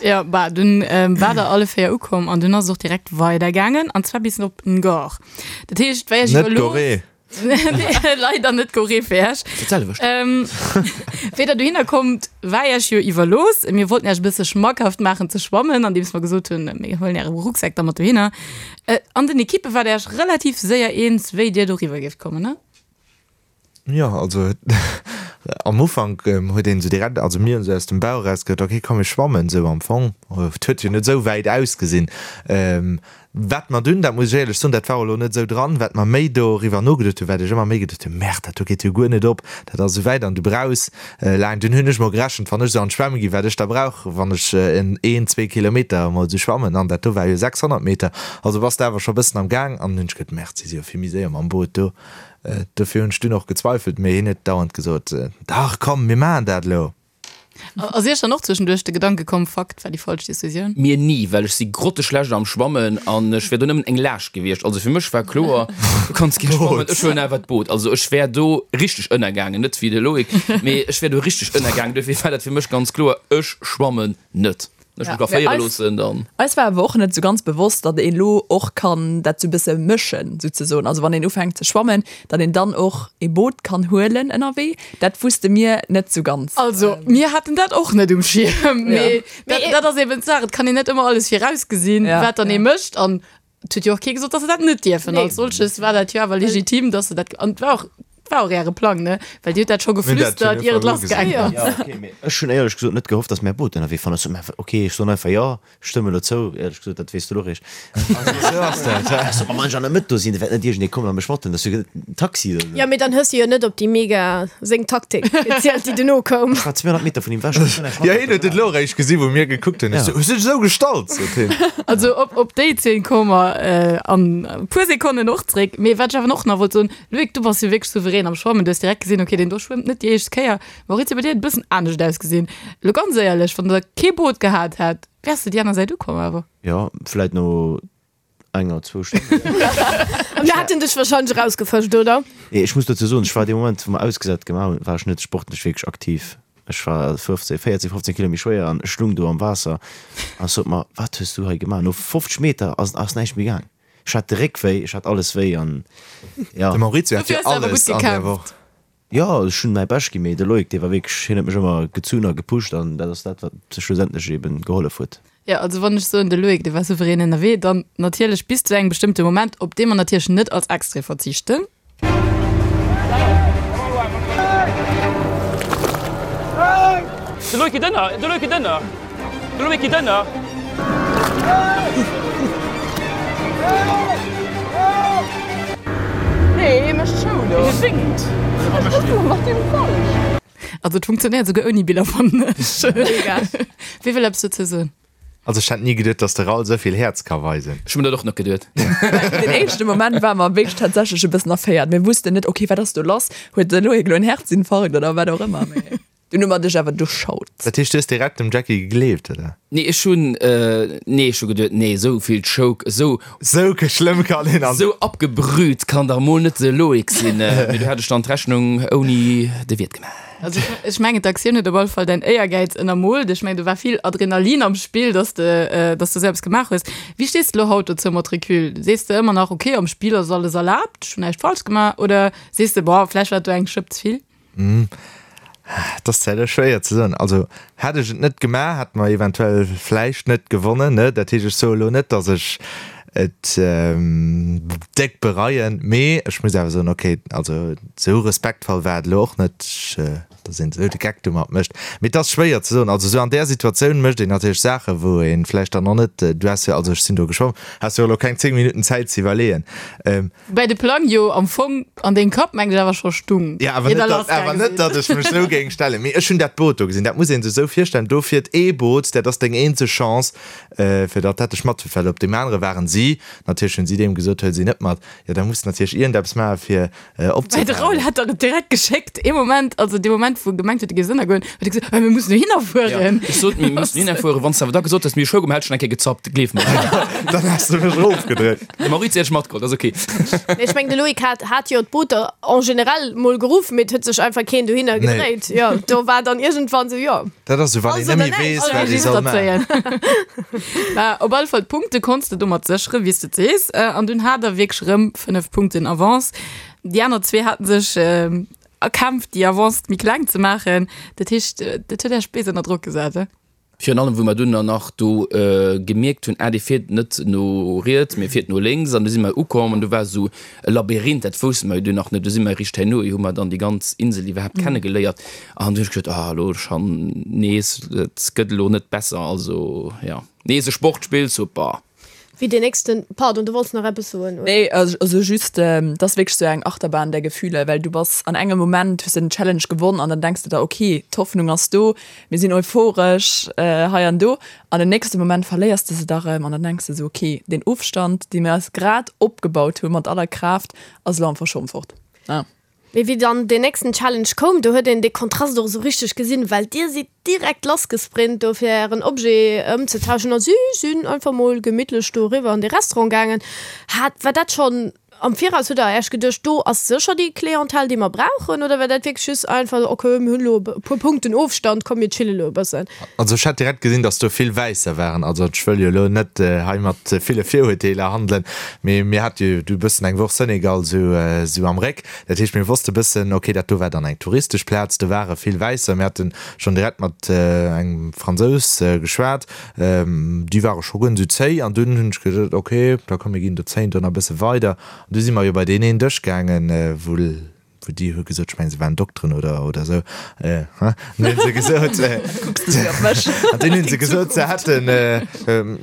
Jo, bah, dunn war der alle 4 ukomm an dunn ass et och direkt weidergaangen, an zwar bis op Ngor. Dat heescht, wéi ech Net iwwer elo. Gorée. Leider net Gorée fir Iech. Dat selwecht. Ähm, wéi der dohinner kommt, war Iech jo iwwerlooss. Mir wollten Iech e bësse schmackhaft maachen ze schwammen, andeems mer gesot hunn, mir huelen Äre Rucksak da mat dohinner. Äh, an den Ekippe waart Iech relativ séier eens, wéi Dir doriwwer géift kommen, ne? Jo, also am Ufank huet een esou direkt, also mir hunn esou aus dem Bauch eraus gesot, ok, komm mir schwammen esou am Fong. Et huet jo net esou wäit ausgesinn. Wat mer dunn, dat muss ech éierlech soen, dat war och elo net esou dran, wat mer méi doriwwer nogeduet hunn, wat ech ëmmer méi geduet hunn, Merde, dat do geet jo guer net op, dat ass esou wäit an du brauchs laang. Dunn hunn ech mol gerechent, wann ech esou an d'Schwämme ginn, wat ech da brauch, wann ech en een, zwee Kilometer emol esou schwammen, an dat do war jo 600 Meter, also bass de awer scho bëssen am Gaang. An hunn ech geduet, Merde, si si jo vill méi séier mam Boot do. Dofir hunn ech dunn och gezweifelt, mee hien huet dauernd gesot, Dach, komm, mir maachen dat elo. Ass Iech dann och zwëschenduerch de Gedanke komm, Fuck, dat war déi falsch Decisioun? Mir ni, well ech si grotteschlecht am Schwammen an ech wär do nëmmen eng Laascht gewiescht. Also fir mech war kloer, du kanns gär schwammen, ech huelen awer d'Boot. Also ech wär do richteg ënnergaangen, net wéi de Loïc, mee ech wär do richteg ënnergaangen. Dofir war dat fir mech ganz kloer, ech schwammen net. Ech mech ka féiere loossen, dann. Eis war awer och net sou ganz bewosst, datt een elo och kann dat sou bësse mëschen souzesoen. Also wann een ufänkt ze schwammen, datt een dann och ee Boot kann huelen ënnerwee. Dat wusste mir net sou ganz. Also mir haten dat och net um Schierm, mee dat ass eben d'Saach, et kann een net ëmmer alles virausgesinn, wat dann ee mécht. An Et huet jo och kee gesot, dass se dat net dierfen. Als solches war dat jo awer legitim, dass se dat, an et war och, et war och äre Plang, ne? Well Dir hutt dat scho geflüstert, ier et lassgaangen ass. Ja, okay, mee ech hunn éierlech gesot net gehofft, dass mär Boot ënnerwee fannen. Ech sot, mä okay, ech soen einfach jo, ech stëmme elo zou. Éierlech gesot, dat weess de elo eréischt. Esou ass dat. Ech sot, ma wann ech an der Mëtt do sinn, da wäert net iergendee kommen a mech mathuelen. Dat ass jo en Taxi oder esou. Jo, mee dann hues de jo net op déi mega seng Taktik gezielt, déi duerno koum. Ech war 200 Meter vun him ewech. Ech hunn näischt Jo, hien huet et elo eréischt gesinn, wou mir gekuckt hunn. Ech sou, Hues du dech esou gestallt? sot hien. Also op, op déi Zeen komme mer an e puer Sekonnen och zréck. Mee wat ech awer och nach wollt soen, Loïc, du bass jo wierklech souverän am Schwammen. Du hues direkt gesinn, okay, deen do schwëmmt net déi éischt Kéier. Maurizio, bei dir huet et e bëssen anescht ausgesinn. Elo ganz éierlech, wann der kee Boot gehat hätt, wäers de déi aner Säit ukomm awer? Jo, vläit no enger, zwou Stonnen. An da hätt en dech wahrscheinlech erausgefëscht, oder? Nee, ech muss dozou soen, ech war dee Moment, wou mer ausgesat gemaach hunn, war ech net sportlech wierklech aktiv. Ech war 15, 14, 15 Kilo méi schwéier an ech lung do am Waasser an ech sot mer, Wat hues du hei gemaach? No 50 Meter ass ass näischt méi gaang. Ech hat de Réck wéi, ech hat alles wéi an ja. De Maurizio hat Dofir jo hues de awer alles gutt an där gekämpft. Woch. Jo, ech hunn mäi Bescht ginn, mee de Loïc, dee war wierklech, hien huet mech ëmmer gezunn a gepusht an dat ass dat, wat schlussendlech eben gehollef huet. Jo, also wann ech soen, de Loïc, dee war souverän ënnerwee, dann natierlech bis zu engem bestëmmte Moment, op dee mer natierlech net als Extrait verzichten. De Loïc geet ënner, de Loïc geet ënner, de Loïc geet ënner. Nee, hie mécht Show do. Hie séngt. Wat mécht hien? Mat deem falsch. Also et funktionéiert souguer ouni Biller fannen ech. Mega. Wie wëll eppes dozou soen? Also ech hätt ni geduet, dass de Raoul esou vill Häerz ka weisen. Ech hu mir dat och net geduet. Den éischte Moment ware mer wierklech tatsächlech e bëssen erféiert. Mir wussten net, okay, wat ass do lass? Huet de Loïc elo en Herzinfarkt oder wat och ëmmer? Mee dunn hu mer dech awer duerchschaut. Dat heescht, du hues direkt dem Jackie gegleeft, oder? Nee, ech hunn, nee, ech hu geduet, nee, esou vill Choke, esou. Esou schlëmm kann een an. Esou abgebrüht kann dach mol net de Loïc sinn. Mee du hat ech dann d'Rechnung ouni de Wiert gemaach. Also ech mengen d'Aktioun huet op alle Fall däin Éiergäiz ënnermoolt. Ech mengen do war vill Adrenalin am Spill, dass de, dass de esou eppes gemaach hues. Wéi stees de elo haut dozou mat Recul? Sees de ëmmer nach, ok, am Spill ass alles erlaabt, ech hunn näischt falsch gemaach, oder sees de, boah, vläicht war et do eng Schëpp ze vill? Et ass zwar elo schwéier ze soen. Also hätt ech et net gemaach, hätt mer eventuell vläicht net gewonnen, ne? Dat heescht, ech soe elo net, datt ech et déck bereien, mee ech muss awer soen, okay, also esou respektvoll war et elo och net, datt een esou de Geck domat mécht. Mee et ass schwéier ze soen. Also esou an där Situatioun mécht een natierlech Saachen, wou ee vläicht dann och net, du has jo, also ech sinn do geschwomm, has jo elo keng 10 Minutten Zäit ze iwwerleeën. Woubäi de Plang jo am Fong an dengem Kapp, mengen ech, awer scho stung. Jo, awer net, datt, awer net, datt ech mech esou géing stellen. Mee ech hunn dat Boot do gesinn. Dat muss ee sech esou virstellen, do fiert ee Boot, dat ass deng eenzeg Chance, fir datt dat dech matfiert, well op deem anere waren si, natierlech hunn si deem gesot, huel si net mat. Jo, da muss de natierlech iergendeppes maachen, fir Woubäi de Raoul hat der et direkt geschéckt, ee Moment, also dee Moment, wou e gemengt huet, e géif ënnergoen, huet e gesot, Mir mussen dohinner fueren. Ech sot, mir mussen dohinner fueren. Wann s de awer da gesot häss, mir hu Schougumm, hätt ech schon eng Kéier gezappt, gleef mer. Dann häss de mech erofgedréckt. De Maurizio hätt ech matgeholl, dat ass ok. Mee ech mengen, de Loïc hat, hat jo d'Booter en général mol geruff, mee et huet sech einfach keen dohinner gedréit. Jo, do war dann iergendwann sou, jo. Dat ass sou, wann een Alles net oder méi näischt. weess, wat ee soll maachen. Mä op alle Fall, d'Punkte konns de domat sécheren, wéi s de et sees. An dunn hat der wierklech erëm 5 Punkten Avance. Déi aner zwee haten sech erkämpft, déi Avance méi kleng ze maachen. Dat heescht, dat huet Iech béis ënner Drock gesat, he? Virun allem, wou mer dunn dann nach do gemierkt hunn, ah, dee fiert net no riets, mee fiert no lénks. An du si mer ukomm an do war esou e Labyrinth, dat wousste mer jo dunn nach net. Du si mer eréischt herno, hu mer dann déi ganz Insel iwwerhaapt kennegeléiert. An du hunn ech gesot, ah, elo schonn nees, et gëtt elo net besser. Also, jo, nees e Sportspill, super. Wéi deen nächsten, pardon, du wollts nach eppes soen, oder? Nee, also just, et ass wierklech sou eng Achterbahn der Gefühle, well du bass an engem Moment, hues de den Challenge gewonn an dann denks de der, ok, d'Hoffnung ass do, mir sinn euphoresch hei an do, an den nächste Moment verléiers de se da rëm an dann denks de sou, ok, deen Ofstand, dee mir eis grad opgebaut hu mat aller Kraaft, ass elo einfach schonn fort. Mee wéi dann deen nächsten Challenge koum, do huet een dee Kontrast och esou richteg gesinn, well dir sidd direkt lassgesprint do fir ären Objet ëmzetauschen a si sinn einfach mol gemittlech do eriwwer an dee Restaurant gaangen. Hat, war dat schonn am Viraus, hutt der Äech geduecht, do ass sécher déi Clientèle déi mer brauchen, oder war dat wierklech just einfach, ok mir hunn elo e puer Punkten Ofstand, komm mir chille elo e bëssen? Also ech hat direkt gesinn, dass do vill Wäisser waren. Also ech wëll jo elo net hei mat ville Virurteeler handelen, mee mir hate jo du e bëssen eng Woch Senegal sou sou am Réck. Dat heescht, mir wosste bëssen, okay, dat do war dann eng touristesch Plaz, do ware vill Wäisser. Mir hate schonn direkt mat engem Fransous geschwat, déi ware scho guer net sou zéi. An dunn hunn ech gesot, okay, da komm mir ginn do zéien do nach e bësse weider. An du si mer jo bei deen een Dësch gaangen, wou Wou déi hu gesot, ech mengen se waren Dokteren oder oder esou, hein, an hunn se gesot, Kucks de op mech? An dunn hunn se gesot, se hätten,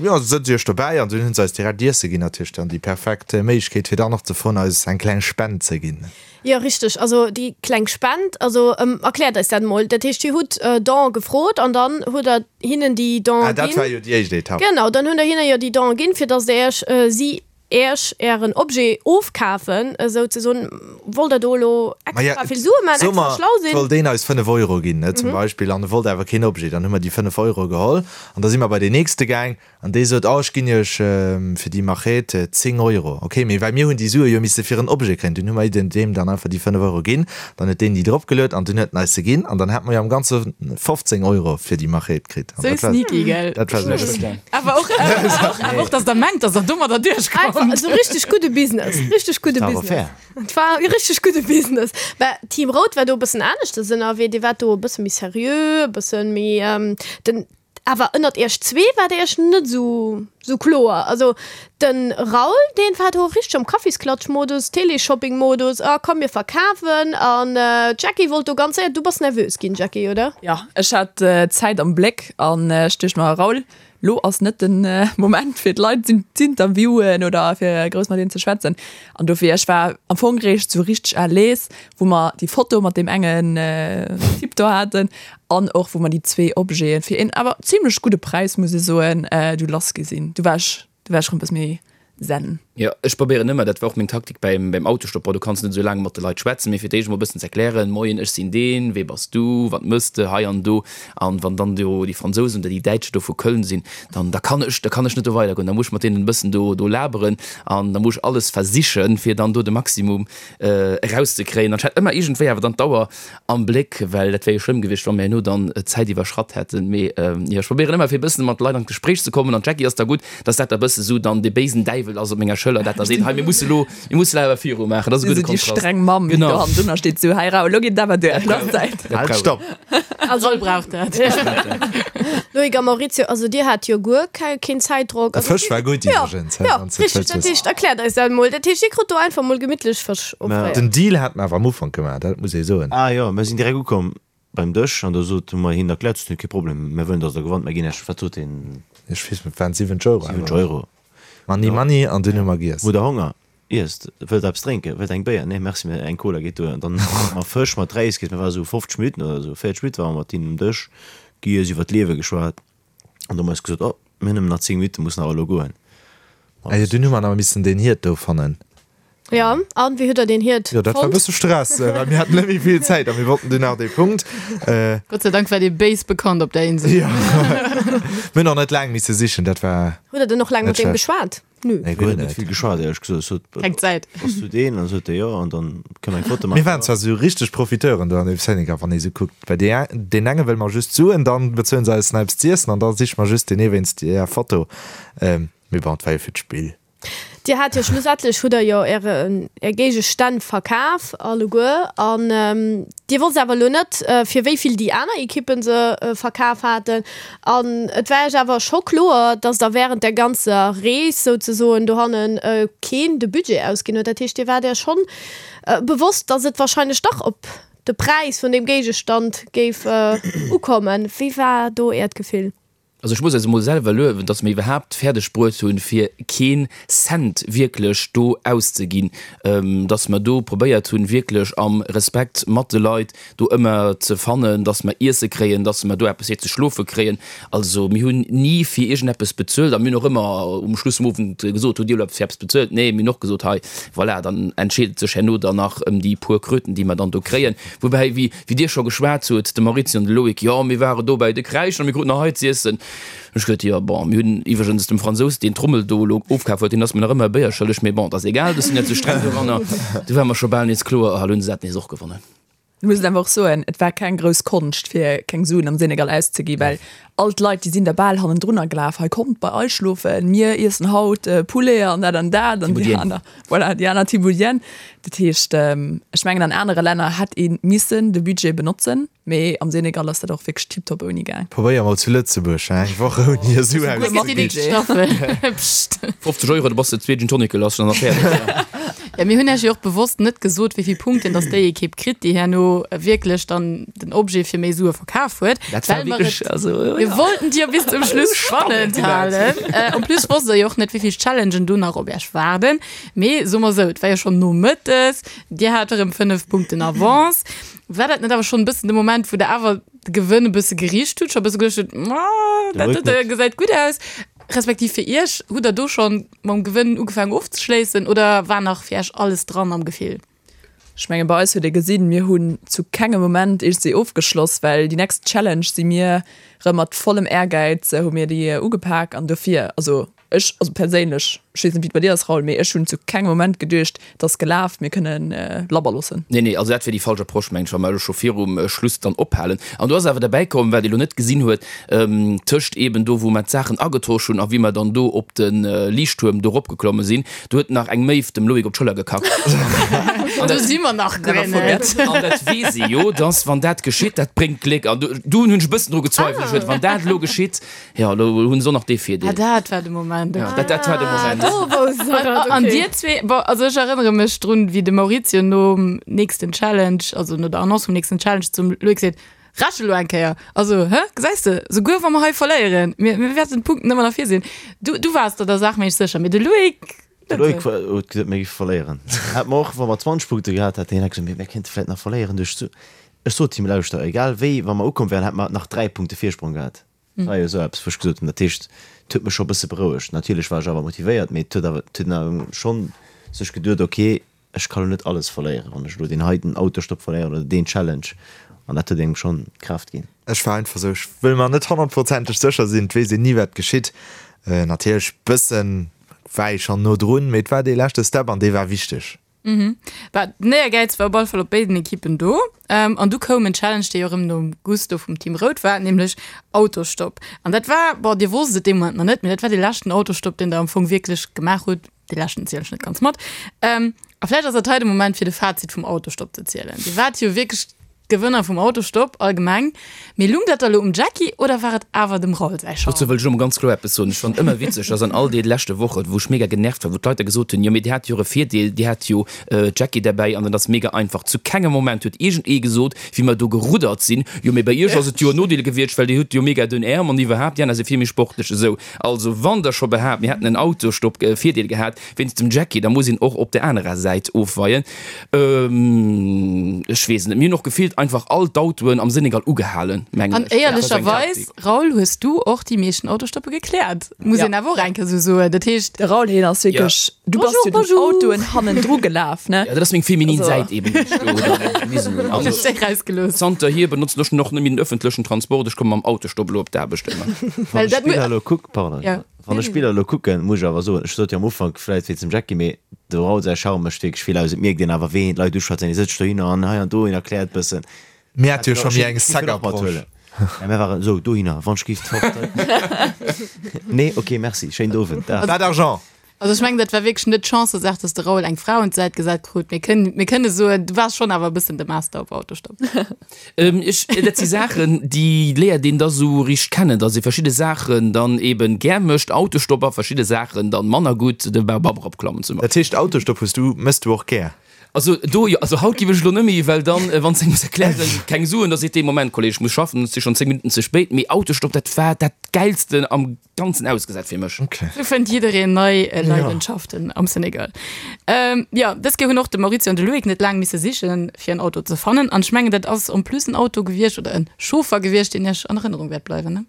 jo, sëtzt Iech dobäi, an dunn hunn se eis direkt Iesse ginn, natierlech dann déi perfekt Méiglechkeet, fir dann och ze froen, eis eng kleng Spend ze ginn. Jo, richteg, also déi kleng Spend, also erkläert eis dat emol. Dat heescht, Dir hutt Don gefrot an dann hutt Der hinnen déi Don Ah, dat ginn. war jo déi éischt Etapp. Genau, dann hunn Der hinne jo déi Don ginn, fir datt Der Iech si Äech ären Objet ofkafen, esou ze soen. Wollt der do elo extra vill Sue maachen, extra schlau sinn? Wollt een eis 5 Euro ginn, ne, zum Beispill, an e wollt awer keen Objet, dann hu mer déi 5 Euro geholl an da si mer bei deen nächste gaang an dee sot, oh ech ginn iech fir déi Machete 10 Euro. Ok, mee well mir hunn déi Sue jo misse fir en Objet kréien, dunn hu mer deem dann einfach déi 5 Euro ginn, dann huet deen déi drop geluet an dunn huet en eis se ginn an dann hate mer jo am Ganze 15 Euro fir déi Machete kritt. Sou sneaky, gell? Dat war sou. Awer och, awer och, dass der mengt, dass der domadder duerchkommt. Einfach esou richtig gudde Business, richtig gudde War awer Business. fair. Et war e richtig gudde Business. Mä Team Rout war do e bëssen aneschters ënnerwee, Dir waart do e bësse méi seriö, e bësse méi den, awer ënnert iech zwee waart der iech net esou, esou kloer. Also de Raoul, deen war do richteg am Kaffisklatsch-Modus, Téléshopping-Modus, ah komm mir verkafen. An d'Jackie wollt do ganz séier, du bass nervös ginn, Jackie, oder? Jo, ech hat d'Zäit am Bléck an ech duecht mer, Raoul, lo ass net de Moment fir d'Leit z'interviewen oder fir grouss mat hinnen ze schwätzen. An dofir, ech war am Fong réischt sou richteg à l'aise, wou mer déi Foto mat deem engen Typ do haten an och wou mer déi zwee Objeten fir een awer zimlech gudde Präis, muss ech soen, du lass gi sinn. Du war ech, du war ech rëm e bësse méi zen. Jo, ech probéieren ëmmer, dat war och meng Taktik beim, beim Autostopp, bon, du kanns net esou laang mat de Leit schwätzen, mee fir d'éischt emol e bëssen z'erklären, Moien, ech sinn deen, wee bass du, wat mëss de hei an do? An wann dann do déi Fransousen oder déi Däitschen do vu Köln sinn, dann, da kann ech, da kann ech net do weidergoen, da muss ech mat deenen e bëssen do, do laberen an da muss ech alles versichen, fir dann do de Maximum erauszekréien. An ech hat ëmmer iergendwéi awer dann d'Auer am Bléck, well dat wär jo schlëmm gewiescht, wa mir herno dann d'Zäit iwwerschratt hätten. Mee jo, ech probéieren ëmmer fir e bëssen mat de Leit an d'Gespréich ze kommen an d'Jackie ass da gutt, dass dat da bësse sou dann dee béisen Däiwel ass op menger Schëller. Schëller, dat da seet, hei mir musse lo, mir musse lo awer viru maachen. Dat ass e gudde Déi Kontrast. streng Mamm, déi do Genau. hannendrunner steet, sou, hei Raoul, lo geet et awer duer, lo ass Zäit. Dat Halt, brauch stopp! Also Raoul brauch dat. Loïc a Maurizio, also dir hat jo guer kei keen Zäitdrock. De Also Fësch war gutt ja, iwwregens, ja, wann s de et richteg. wëlls Dat wëssen. heescht, erkläert eis dat mol. Dat heescht, dir krut do einfach mol gemittlech Fësch offréiert. Den Deal hat mer awer am Ufank gemaach, dat muss ee soen. Ah jo, mir sinn direkt ukomm beim Dësch an do sot, hu mer hinnen erkläert, sot hien, kee Problem, mir wëllen, datt der gewannt, mir ginn Iech, wat sot hien? Ech weess net, waren 70 Euro awer. 70 Euro. Money, money, an dunn hu mer giess. Hutt der Honger? Iesst. Wëllt der eppes drénken? Wëllt der eng Béier? Nee, merci, mä eng Cola geet duer. An dann hu mer Fësch mat Räis giess. Mir ware sou 50 Minutten oder sou, 40 Minutte ware mer mat hinnen um Dësch, giess, iwwer d'Liewe geschwat. An du hu mer eis gesot, oh, mir hunn nëmmen nach 10 Minutten, mussen awer elo goen. Ah jo, dunn hu mer nach missen deen Hiert do fannen. Jo, an wéi hutt der deen Hiert Jo, dat war e fonnt? bësse Stress, well mir haten net méi vill Zäit a mir wollten dunn nach dee Punkt. Gott sei Dank war dee béis bekannt op der Insel. Jo, mir hunn och net laang misse sichen, dat war Hutt der dann och laang net mat deem schlecht. geschwat? Nö. Nee, guer Mir hunn net net. vill geschwat, éierlech gesot. Ech sot, Keng Zäit. Bass du deen? An sot e jo, an dann kënne mer eng Foto Mir maachen. waren zwar sou richteg Profiteuren do an dem Senegal, wann ee sou kuckt, well dee deen enge wëlle mer just d'Suen, dann bezuelen se eis nach eppes z'iessen an da siche mer just deen ee wéinst där Foto. Mee bon, et war jo fir d'Spill. Dir hat jo schlussendlech hutt der jo äre är Géigestänn verkaf alleguer an Dir wosst awer elo net fir wéi vill déi aner Ekippen se verkaf haten an et war Iech awer scho kloer, dass der während der ganzer Rees souzesoen dohannen keen de Budget ausginn huet. Dat heescht Dir waart Iech schonn bewosst, dass et wahrscheinlech dach op de Präis vun deem Géigestand géif ukommen. Wéi war do Äert Gefill? Also ech muss eis emol selwer luewen, dass mir iwwerhaapt fäerdeg bruet hunn, fir keen Cent wierklech do auszeginn, dass mer do probéiert hunn, wierklech am Respekt mat de Leit do ëmmer ze fannen, dass mer Iesse kréien, dass mer do eppes fir ze schlofe kréien. Also mir hunn ni fir iergendeppes bezuelt a mir hunn och ëmmer um Schluss vum Owend gesot, hutt Dir elo eppes fir eppes bezuelt? Nee, mir hunn och gesot, hei, voilà, dann entscheet et sech herno dann nach ëm déi puer Kröten, déi mer dann do kréien. Woubäi, wéi Wéi dir scho geschwat hutt, de Maurizio an de Loïc, jo, mir ware do bäi de Kräischen a mir kruten nach hei z'iessen. Ech gesot, jo, bon, mir hunn iwwregens dem Fransous, deen d'Trommel do elo ofkaf huet, deen ass mir nach ëmmer e Béier schëlleg, mee bon, et ass egal, ech sinn net sou streng doranner. Du war mer scho bal nees kloer, ah, elo hunn se dat nees och gewonnen. Ech muss et einfach och soen, et war keng grouss Konscht, fir keng Suen am Senegal auszegi, well all d'Leit, déi sinn der bal hannendrunner gelaf, hei kommt bei eis schlofen, mir iessen haut Poulet an dat an dat an déi aner. Voilà, déi aner Thieboudienne. Dat heescht, ech mengen an anere Länner hätt ee missen de Budget benotzen, mee am Senegal ass dat och wierklech tiptop ouni gaang. Probéier mol zu Lëtzebuerg eng Woch ouni e Su auszeginn. 50 Euro, da bass de zwee Gin Tonic lass an da fäerdeg. Ja, mir hunn Iech jo och bewosst net gesot, wéi vill Punkten dass déi Ekipp kritt, déi herno wierklech dann den Objet fir méi Sue verkaf huet. Dat war Well mer wierklech, et, also, mir ja. wollten et jo bis zum Schluss spannend halen. En plus wosst der jo och net, wéi vill Challengen do nach op Iech waarden. Mee soe mer esou, et war jo schonn nomëttes, Dir hat erëm 5 Punkten Avance. War dat net awer schonn e bëssen de Moment, wou Der awer de Gewënn e bësse gericht hutt, scho e bësse geduecht hutt, Ma, dat Loïc dote net. gesäit gutt aus? Respektiv fir Iech, hutt Der do schonn mam Gewënn ugefaangen ofzeschléissen oder war nach fir Iech alles dran am Gefill? Ech menge bei eis huet ee gesinn, mir hunn zu kengem Moment iergendwéi ofgeschloss, well déi next Challenge si mir rëm mat vollem Ehrgäiz hu mir déi ugepak an dofir, also ech, also perséinlech, ech weess net wéi et bei dir ass Raoul, mee ech hunn zu kengem Moment geduecht, et ass gelaf, mir kënnen labber loossen. Nee, nee, also dat wier déi falsch Approche mengen ech, wa mer elo scho virum Schluss dann ophalen. An do ass awer derbäi komm, wat ee lo net gesinn huet, tëscht eeben do wou mer d'Saachen agetosch hunn a wéi mer dann do op de Liichttuerm do eropgeklomme sinn, Do huet nach eng Méiw dem Loïc op d'Schëller gekackt. Do si mer nach guer net. An dat weess ee jo, dass wann dat geschitt, dat bréngt Gléck. An do hunn ech e bëssen dru gezweifelt. Ech huet, wann dat elo geschitt, jo, elo hunn se och nach dee Virdeel. Ah, dat war de Moment, ok. Ja, dat war de Moment. Do wousst se dat, ok. An dir zwee, bon, also ech erënnere mech drun, wéi de Maurizio nom nächsten Challenge, also no der Annonce vum nächsten Challenge zum Loïc seet, Rechent elo eng Kéier! Also, hä? Gesäis de, souguer wa mer hei verléieren, mir, mir wäerten d'Punkten ëmmer nach vir sinn. Du, du waars der der Saach méi sécher, mee de Loïc De net Loïc esou. war, huet gesot, mir géife verléieren. Hätt mer och, wa mer 20 Punkte gehat hätten, hien hätt gesot, mir, mir kéinte vläit nach verléieren duerch d'Su. Ech sot him, Lauschter, egal wéi, wa mer ukomm wären, hätte mer nach 3 Punkte Virsprong gehat. Dat war jo esou eppes, wou ech gesot hunn, dat heescht, et huet mech scho e bësse berouegt. Natierlech war ech awer motivéiert, mee et huet awer, et huet een awer schonn sech geduet, okay, Ech ka lo net alles verléieren, wann ech elo deen heiten Autostopp verléieren oder deen Challenge. An dat huet engem schonn Kraaft ginn. Ech war einfach esou, ech wëll mer net honnertprozenteg sécher sinn, et weess een ni wat geschitt. Natierlech bëssen war ee schonn no drun, mee et war dee leschte Step an dee war wichteg. Bah, den Éiergäiz war op alle Fall op béiden Ekippen do. An du koum en Challenge, dee jo erëm nom Gusto vum Team Rout war, nämlech Autostopp. An dat war, bon, dir wosst et dee Moment nach net, mee dat war dee leschten Autostopp, deen der am Fong wierklech gemaach hutt. Dee leschten zielen ech net ganz mat. A vläicht ass dat hei de Moment fir de Fazit vum Autostopp ze zielen. Dir waart jo wierklech d'Gewënner vum Autostopp allgemeng. Mee lung dat da lo um Jacky oder war et awer dem Raoul säi Charme? Dozou wëll ech elo mol ganz kloer eppes soen. Ech fannen ëmmer witzeg, dass an all deene leschte Wochen, wou ech mega genervt war, wou d'Leit da gesot hunn, jo mee dir hat jo och e Virdeel, dir hat jo d'Jackie derbäi an dat ass mega einfach. Zu kengem Moment huet iergendee gesot, wéi mer do geruddert sinn, jo mee bei iech ass et jo en Nodeel gewiescht, well dir hutt jo mega dënn Äerm an iwwerhaapt, déi aner si vill méi sportlech esou. Also wann der scho behaapt, mir hätten en Autostopp-Virdeel gehat wéinst dem Jacky, da muss een och op der anerer Säit ofweien. Ech weess et net. Mir hunn och gefillt einfach all d'Autoen am Senegal ugehalen, mengen An ech. Dat war sou eng éierlecherweis, Taktik. Raoul, hues du och déi meeschten Autostoppe gekläert, muss een awer och eng Kéier sou soen. Dat heescht. De Raoul, hien ass wierklech, du bass Bonjour, jo den bonjour. Autoen hannendru gelaf, ne? Jo, dat ass meng feminin Also. Säit eben, déi ech do dann gewisen hunn. Also. Hues déi rausgelooss. Zanterhier benotzen ech och net méi den ëffentlechen Transport, ech komme mam Autostopp elo op d'Aarbecht ëmmer. Wann Well ech dat d'Spiller elo kuck, pardon, Ja. wann ech d'Spiller elo kucken, muss ech awer soen, ech sot jo am Ufank vläit wéinst dem Jacky, mee de Raoul säi Charme mécht wierklech vill aus. Et mierkt een awer, wéi een d'Leit uschwätzt, en sëtzt dohinner an hei an do, en erkläert bëssen. Mir hat jo scho méi eng sec Approche. Ja, mir waren esou dohinner, wann ech géif d'Fort. Nee, ok, merci, schéinen Owend, Dag. Pas d'argent! Also ech mengen, dat war wierklech net d'Chancësaach, dass de Raoul eng Fra un d'Säit gesat krut. Mir kënnen, mir kënne soen, du waars schonn awer e bëssen de Master op Autostopp. Ech, dat si Saachen, déi léiert een da sou richteg kennen, dass ee verschidde Saachen dann eben gär mécht, Autostopp, a verschidde Saachen dann manner gutt, de Baobab eropklammen zum Dat Beispill. heescht, Autostopp hues du, méchs du och gär? Also do jo, also haut giff ech elo net méi, well dann, wann s de muss erklären, keng Suen, da seet dee, Moment Kolleg, ech muss schaffen, et si schonn 10 Minutten ze spéit. Mee Autostopp, dat war dat Gäilsten am Ganzen ausgesat fir mech. Sou fënnt jiddereen nei Leidenschaften am Senegal. Jo, dës Kéier hunn och de Maurizio an de Loïc net laang misse sichen, fir en Auto ze fannen. An ech mengen, dat ass en plus en Auto gewiescht oder en Chauffer gewiescht, deen iech an Erënnerung wäert bleiwen, ne?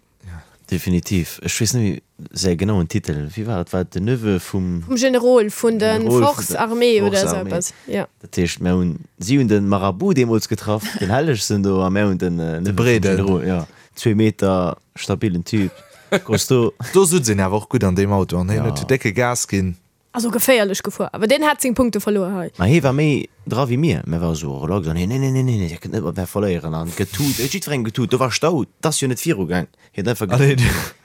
Definitiv. Ech weess net méi säi genauen Titel. Wéi war et? War et den Neveu vum. Vum Generol vun de Generol vun der Forces armées oder Forces esou armées. eppes, jo. Dat heescht, mär hunn, si hunn de Marabout deemools getraff, den Hellegsten do, a mär hunn den Neveu vum Breeden. Generol, jo. Zwee Meter, stabilen Typ, costaud. Do sutz een awer och gutt an deem Auto an hien Ja. huet jo décke Gas ginn. Also geféierlech gefuer, awer deen hat seng Punkte verluer hei. Ma hee war méi dra wéi mir. Mir ware sou relax an hien, Nee, nee, nee, nee, dir kënnt net mat mär verléieren an getut, huet jiddwerengem getut. Do war Stau, 't ass jo net virugaang. Hien huet einfach getut.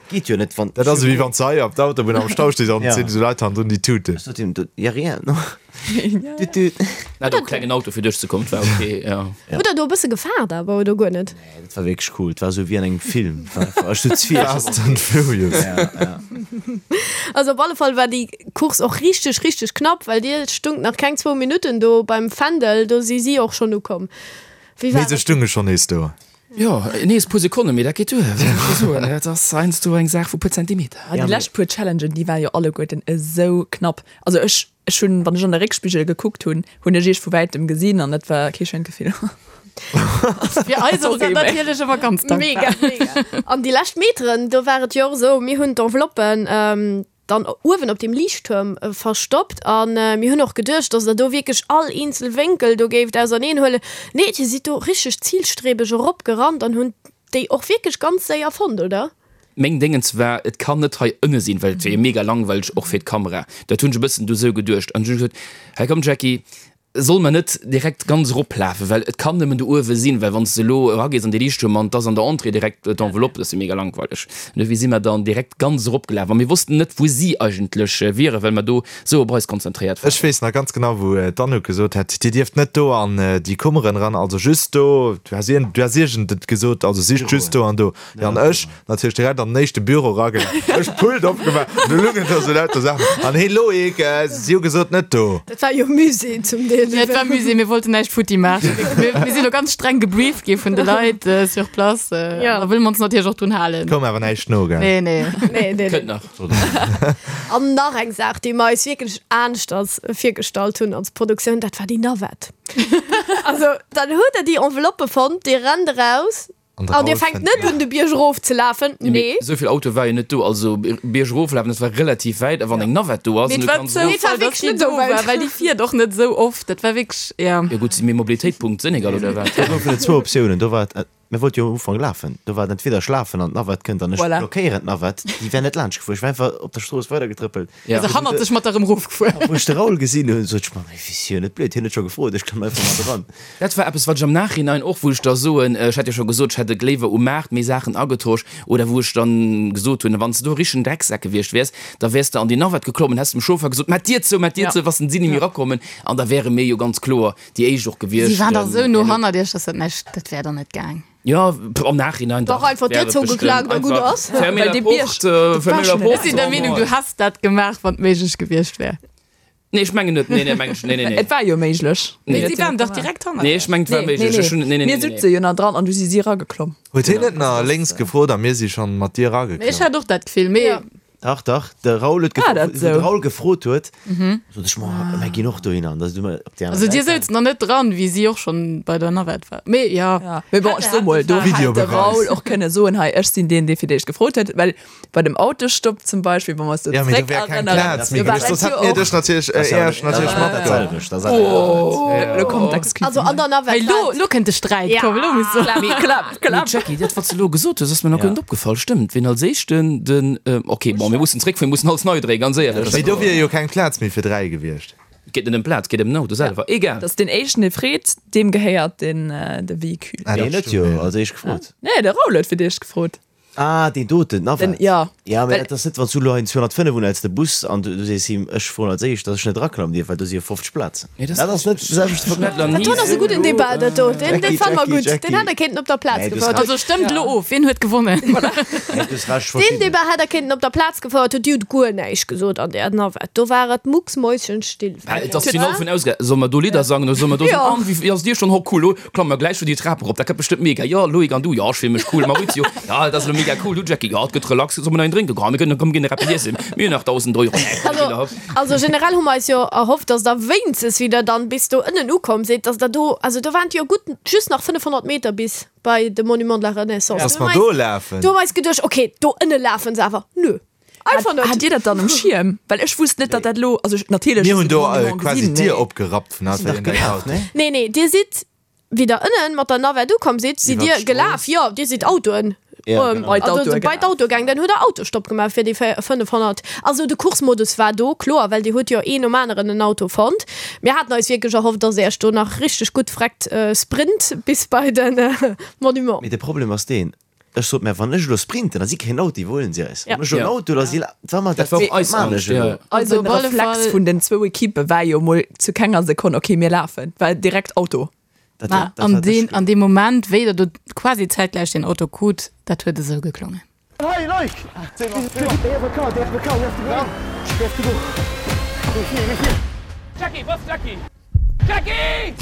Geet jo net, wann. Dat ass ewéi wann s de hei op der Autobunn am Stau stees an et sinn esou Leit hannendrun, déi tuten. Ech sot him, Ja rien, no. Tut, tut. Hat och klengen Auto fir duerchzekommen, 't war ok, jo. Hutt der do e bësse gefaart awer, oder guer net? Nee, dat war wierklech cool. Et war esou wéi an engem Film. Et war einfach, ech sot vill. Fast and Furious. Ja, ja. Also op alle Fall war déi Course och richteg, richteg knapp, well dir stungt nach keng zwou Minutten do beim Fändel, do si si och schonn ukomm. Wéi war Mee se dat? stunge schonn nees do. Jo, nees puer Sekonnen, mee dat geet duer, wéi soll ech soen, dat ass heiansdo eng Saach vu puer Zentimeter. Ah, déi lescht puer Challengen, déi waren jo alleguerten esou knapp. Also ech, Ech hunn, wann ech an de Réckspigel gekuckt hunn, hunn ech iech vu wäitem gesinn an dat war kee schéint Gefill. Fir eis ass dat natierlech ëmmer ganz dankbar. Mega, mega. An déi lescht Meteren, do war et jo och esou, mir hunn d'Enveloppen dann uewen op deem Liichttuerm verstoppt a mir hunn och geduecht, dass der do wierklech all eenzel Wénkel do géift auserneen huelen. Nee, dir sidd do richteg zilstrebeg eropgerannt an hunn déi och wierklech ganz séier fonnt, oder? Meng Déngens war, et kann net hei ënne sinn, well et wier jo mega langweileg och fir d'Kamera. Dat hunn ech e bëssen du sou geduecht. An ech hunn gesot, hei komm Jackie, solle mer net direkt ganz eroplafen, well et kann nëmmen do uewe sinn, well wann s de elo eragees an dee Liichttuerm an et ass an der Entrée direkt d'Enveloppe, dat ass jo mega langweileg. An dofir si mer dann direkt ganz eropgelaf a mir wossten net, wou si eigentlech wieren, well mer do sou op eis konzentréiert waren. Ech weess nach ganz genau, wou d'Anouk gesot hat, Dir dierft net do an déi Kummeren eran, also just do, du has iergend et gesot, also sicht just do an do. Jo, an ech natierlech direkt an den éischte Büro eragelaf, ech d'Pult opgemaach, do lungen da sou lauter Saachen. An hee Loïc, si hu gesot, net do. Dat war jo Musée zum Deel. Jo, et war Musée, mir wollten näischt futti maachen. Mir, mir sinn do ganz streng gebrieft gi vun de Leit sur place. Jo. Da wëlle mer ons natierlech och drun halen. Koum awer näischt no, gell? Nee, nee. Nee, nee, nee. Kënnt nach. An nach eng Saach, déi mer eis wierklech aneschters virgestallt hunn als Produktioun, dat war déi Navette. Also, dann hutt Der déi Enveloppe fonnt, Dir rennt eraus an Dir fänkt net un, de Bierg erofzelafen. Nee. Esou vill Autoe war jo net do. Also Bierg eroflafen, dat war relativ wäit. A wann eng Navette do ass, Mee an et du war kanns Zoufall, erof. Et war wierklech dass déi net esou do war, wäit. well déi fiert och net esou oft. Dat war wierklech, ja. Jo gutt, si mir Mobilitéitpunkt Senegal oder wat? Do goufen et zwou Optiounen. Do war et. Mir wollte jo am Ufank lafen. Do war et entweder ech lafen an d'Navette kënnt an ech Voilà. blockéieren d'Navette. Déi wär net laanscht gefuer. Ech war einfach op der Strooss weidergetrëppelt. Ja. Also hannert sech mat der erëm erofgefuer. Wou ech de Raoul gesinn hunn, sot ech mer, Mee wéi si jo net blöd, hien huet scho gefrot, ech klamm einfach mat eran. Dat war eppes, wat ech am Nachhinein och, wou ech da soen, ech hat jo scho gesot, ech hätt et léiwer um Maart méi Saachen agetosch oder wou ech dann gesot hunn, wann s de do e richtegen Drecksak gewiescht wäers, da wäers de an déi Navette geklommen, häss dem Chauffer gesot, Maach d'Dier zou, maach d'Dier Ja. zou, wa si ni méi erakommen an da wäre mir jo ganz kloer déi éischt och gewiescht. Si waren dach esou no hannert iech, dass dat näischt, dat wär dann net gaang. Jo, am Nachhinein dach. Dach, einfach d'Dier zougeklaakt a gutt ass. Fermez la porte, fermez la porte. Ech sinn der Meenung, du häss dat gemaach, wann et méiglech gewiescht wär. Nee, ech mengen net. Nee, nee, meng ech, nee, nee, nee. Et war jo méiglech. Nee, si waren dach direkt hannert Nee, ech mengen, et war méiglech. Ech hunn, nee, nee, nee, Mir nee. sutze jo nach dran an du si si erageklomm. Huet hien net nach lénks gefrot a mir si schonn mat dir Mee ech erageklommen? hat och dat Gefill, mee. Dach, dach, de Raoul huet War dat gefrot, wou de sou? Raoul gefrot huet, sot ech, ma mir ginn och dohinner. An da si mir op déi aner Also dir Säit souzt nach net dran, wéi si och schonn bei der Navette war. Mee jo. Ja, mee bon, ech so mol, do hätt de Videobeweis. Raoul och kënne soen, hei, ech sinn deen, dee fir d'éischt gefrot huet, well bei dem Autostopp zum Beispill, wa mer eis do Ja, mee do wär keng zréckerënneren, Plaz méi do war gewiescht, et soss jo hätt mir och. dech natierlech, Das ist ja Iech natierlech dat matgeholl. selwecht, dat ass Lo kommt d'Excuse. Also an der Navette Hei, lo, war lo kënnt de Sträit, Ja. komm, lo muss Klapp, klapp, Mee klapp. Jackie, dat wat s de elo gesot hues, ass mir nach guer Ja. net opgefall. Stëmmt, wien als éischten den, ok, bon, mir mussen zréckfueren, mir mussen alles nei dréien, ganz éierlech. Mee do wier jo keng Plaz méi fir 3 gewiescht. Et geet net ëm Plaz, et geet ëm den Auto selwer. Egal. Dass deen éischten dee freet, deem gehéiert den de Véhicule. Ah, Deen dat huet stimmt, jo ja. als éischt gefrot. Nee, de Raoul huet fir d'éischt gefrot. Ah, deen doten, Den, d'Navette. ja. Ja, mee Well. dat ass net, wann s du elo hei en 205 unhäls, de Bus, an du sees him, ech froen als éischt, dass ech net eraklammen dierf, well do si jo 50 Plazen. Nee, dat Dat ass net de selwechte Ech hunn dat Verglach. nach Dat ni do ass e gudden Debat, dat do. Deen, deen Jackie, fanne mer Jackie, gutt. Deen Jackie. hätt der kéinten op der Plaz Nee, du hues gefouert. Recht. Also stëmmt elo of, wien huet gewonnen? Nee, du hues Recht, Deen verschidden. Debat hätt der kéinten op der Plaz gefouert, huet. Dir hutt guer näischt gesot an där Navette. Do war et mucksmäuschenstill. Well et ass d'Finall vun ausge. Solle mer do Lidder sangen oder solle mer do Jo. soen, an wéi ass dir schonn? Ho cool, lo klamme mer gläich scho déi Trap erop, dat gëtt bestëmmt mega. Jo, Loïc, an du? Jo, ech fill mech cool. Maurizio, jo, dat ass elo mega cool. Du, Jackie? Jo, et gëtt relax. Solle mer nach een drénken? Komm, mir gënn, komm, mir ginn nach eppes iessen. Mir hunn nach 1.000 Euro. Nee, komm, mir ginn nach. Also generell hu mer eis jo erhofft, dass der wéinstens wéi der dann bis do ënnen ukomm sidd, dass der do, also do waren et jo gutt just nach 500 Meter bis bei de Monument de la Renaissance. Dass mer do lafen. Do hu mer eis geduecht, okay, do ënne lafen se awer. Nö, einfach net. Hat Dir dat dann um Schierm? Well ech wusst net, datt dat elo, also ech, natierlech Mir hu hunn se de do Monument quasi gesinn, d'Dier mee. opgerappt vun Sinn dach gelaf, ne? Nee, nee, dir sidd, wéi der ënnen mat der Navette ukomm sidd, sidd Iwwer dir gelaf. Jo, dir sidd Autoen, Ja, genau. Bei also d'Autoe bei gelaf. d'Autoe gaang. Dann hutt der Autostopp gemaach fir déi 500. Also de Coursmodus war do, kloer, well dir hutt jo een nom aneren en Auto fonnt. Mir haten eis wierklech erhofft, dass Iech do nach richteg gutt vreckt sprint bis bei de Monument. Mee de Problem ass deen, ech sot, mä wann ech elo sprinten, da si keen Auto, déi huelen si eis. Ja. Wann ech elo en Auto, da si la, wa mer Dat dat war och eis maan Angscht, ech elo. ja. Also op den alle Reflex Fall- vun den zwou Ekippe war jo mol zu kenger Sekonn, okay, mir lafen, war direkt Auto. Dat Ma war, dat an war deen, dech. an deem Moment, wéi der do quasi zäitgläich deen Auto krut, dat huet esou geklongen. Hey Loïc! They have a car, they have a car, we have to go. We have to go. We're here, we're here. Jackie, was Jackie? Jackie!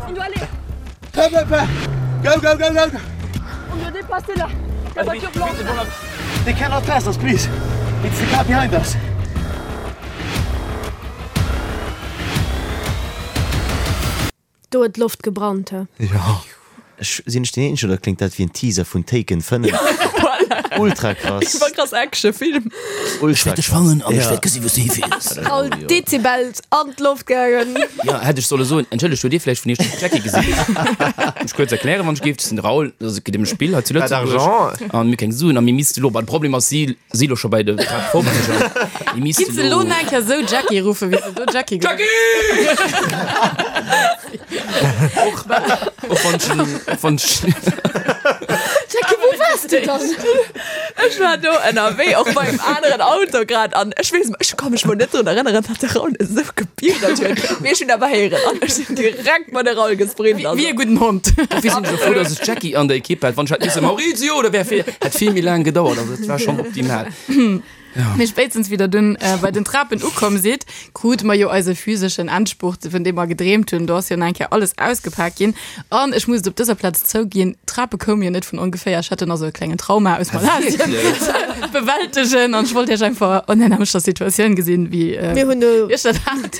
On doit aller, Hop, hop, hop. Go, go, go, go! on doit dépasser la, la voiture blanche. They cannot pass us, please. It's the car behind us. Do huet d'Loft gebrannt, he. Jo. Ech, sinn ech deen eenzegen oder kléngt dat wéi en Teaser vun Taken 5? Ultra krass. Iwwer krass Actionfilm. Ultra Ech wäert dech fannen an ech wäert gesi wou s du hifeels. All d'Dezibels an d'Loft gaangen. Jo, hätt ech solle soen, entschëllegt, hutt Dir vläicht vun Iech den Jackie gesinn? Ech kuerz erklären, wann ech géif, dat ass den Raoul, dat ass geet ëm e Spill hei zu Lëtzebuerg an mir keng Suen a mir misste lo, bah de Problem ass, si si lo scho bei de 50er. Mir misste Giff se lo lo. nach eng Kéier sou Jackie ruffen, wéi se do Jackie geruff Jackie! Och wann ech en, och wann ech. Jackie, wou waars du dann? Ech war do ënnerwee, och bei engem aneren Auto grad an ech weess, ech ka mech mol net drun erënneren, datt de Raoul esou gebiedert huet, mee ech hunn awer héieren an ech sinn direkt mat de Raoul gesprint. Wéi e gudden Hond. Dofir sinn ech jo frou, dass ech d'Jackie an der Ekipp hat. Wann ech hätt misse Maurizio, da wär vill, hätt vill méi laang gedauert. Also dat war schonn optimal. Mee spéitstens wéi der dunn bei den Trapen ukomm sidd, krute mer jo eise physeschen Endspurt, vun deem mer gedreemt hunn. Do ass jo nach eng Kéier alles ausgepak ginn. An ech muss et op dëser Plaz zouginn, d'Trape koume jo net vun ongeféier. Ech hat dunn also e klengen Trauma aus Malasien ze bewältegen an ech wollt iech einfach an der nämmlechter Situatioun gesinn, wéi Mir hunn do iech dat hat.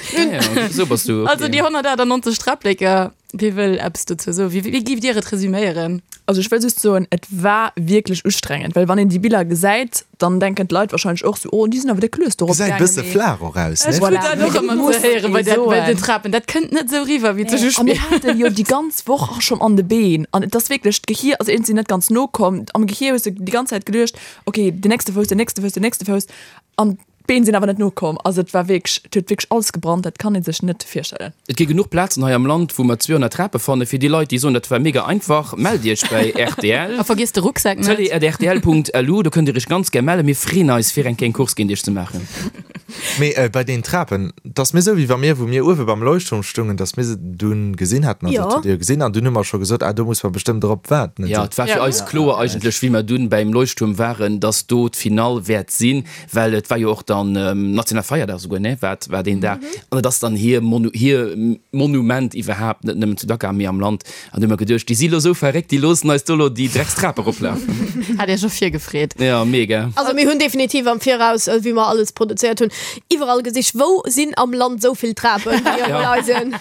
Sou bass du, Also okay. déi 198 Träppleker. Wie wëll eppes dozou soen? Wéi, wéi giff Dir et resüméieren? Also ech wëll just soen, et war wierklech ustrengend, well wann een déi Biller gesäit, dann denken d'Leit wahrscheinlech och sou, oh déi sinn awer déck lues dorop Gesäit gaangen, bësse mee flaach och aus, ne? Ech krut dat och ëmmer ze héieren bei der, bei den Trapen. Dat kënnt net sou riwwer wéi zu A mir haten jo déi ganz Woch och schonn an de Been an et ass wierklech, d'Gehier ass iergendwéi net ganz nokomm. Am Gehier hues de déi ganz Zäit geduecht, okay, den nächste Fouss, den nächste Fouss, den nächste Fouss an D'Been sinn awer net nokomm. Also et war wierklech, et huet wierklech alles gebrannt, dat kann ee sech net virstellen. Et gi genuch Plazen hei am Land, wou mer 200 Trape fannen. Fir déi Leit, déi soen, dat war mega einfach, mellt Iech bäi rtl. A vergiesst de Rucksak net. Tele@rtl.lu, do kënnt Dir Iech ganz gär mellen. Mir freeën eis, fir eng kleng Course géint Iech ze maachen. Mee bei deenen Trapen, 't ass mir esou, wéi wa mir, wou mir uewe beim Leuchtturm stungen, dass mir se dunn gesinn hätten. Also, dat hutt Dir jo gesinn. An dunn hu mer scho gesot, ah, do muss mer bestëmmt erop waarden. Jo, et war fir eis kloer eigentlech, wéi mer dunn bäim Leuchtturm waren, dass do d'Finall wäert sinn. Well et war jo och dann national Feierdag esouguer, ne, war war deen Dag. An et ass dann hir Monu hir Monument iwwerhaapt, net nëmmen zu Dakar, mee am Land. An du hu mer geduecht, déi si lo esou verréckt, déi loossen eis do lo déi Dreckstrap eroplafen. Hat Iech och virgefreet? Jo, mega. Also mir hunn definitiv am Viraus, wéi mer alles produzéiert hunn, iwwerall gesicht, wou sinn am Land esou vill Trapen, déi op eisen.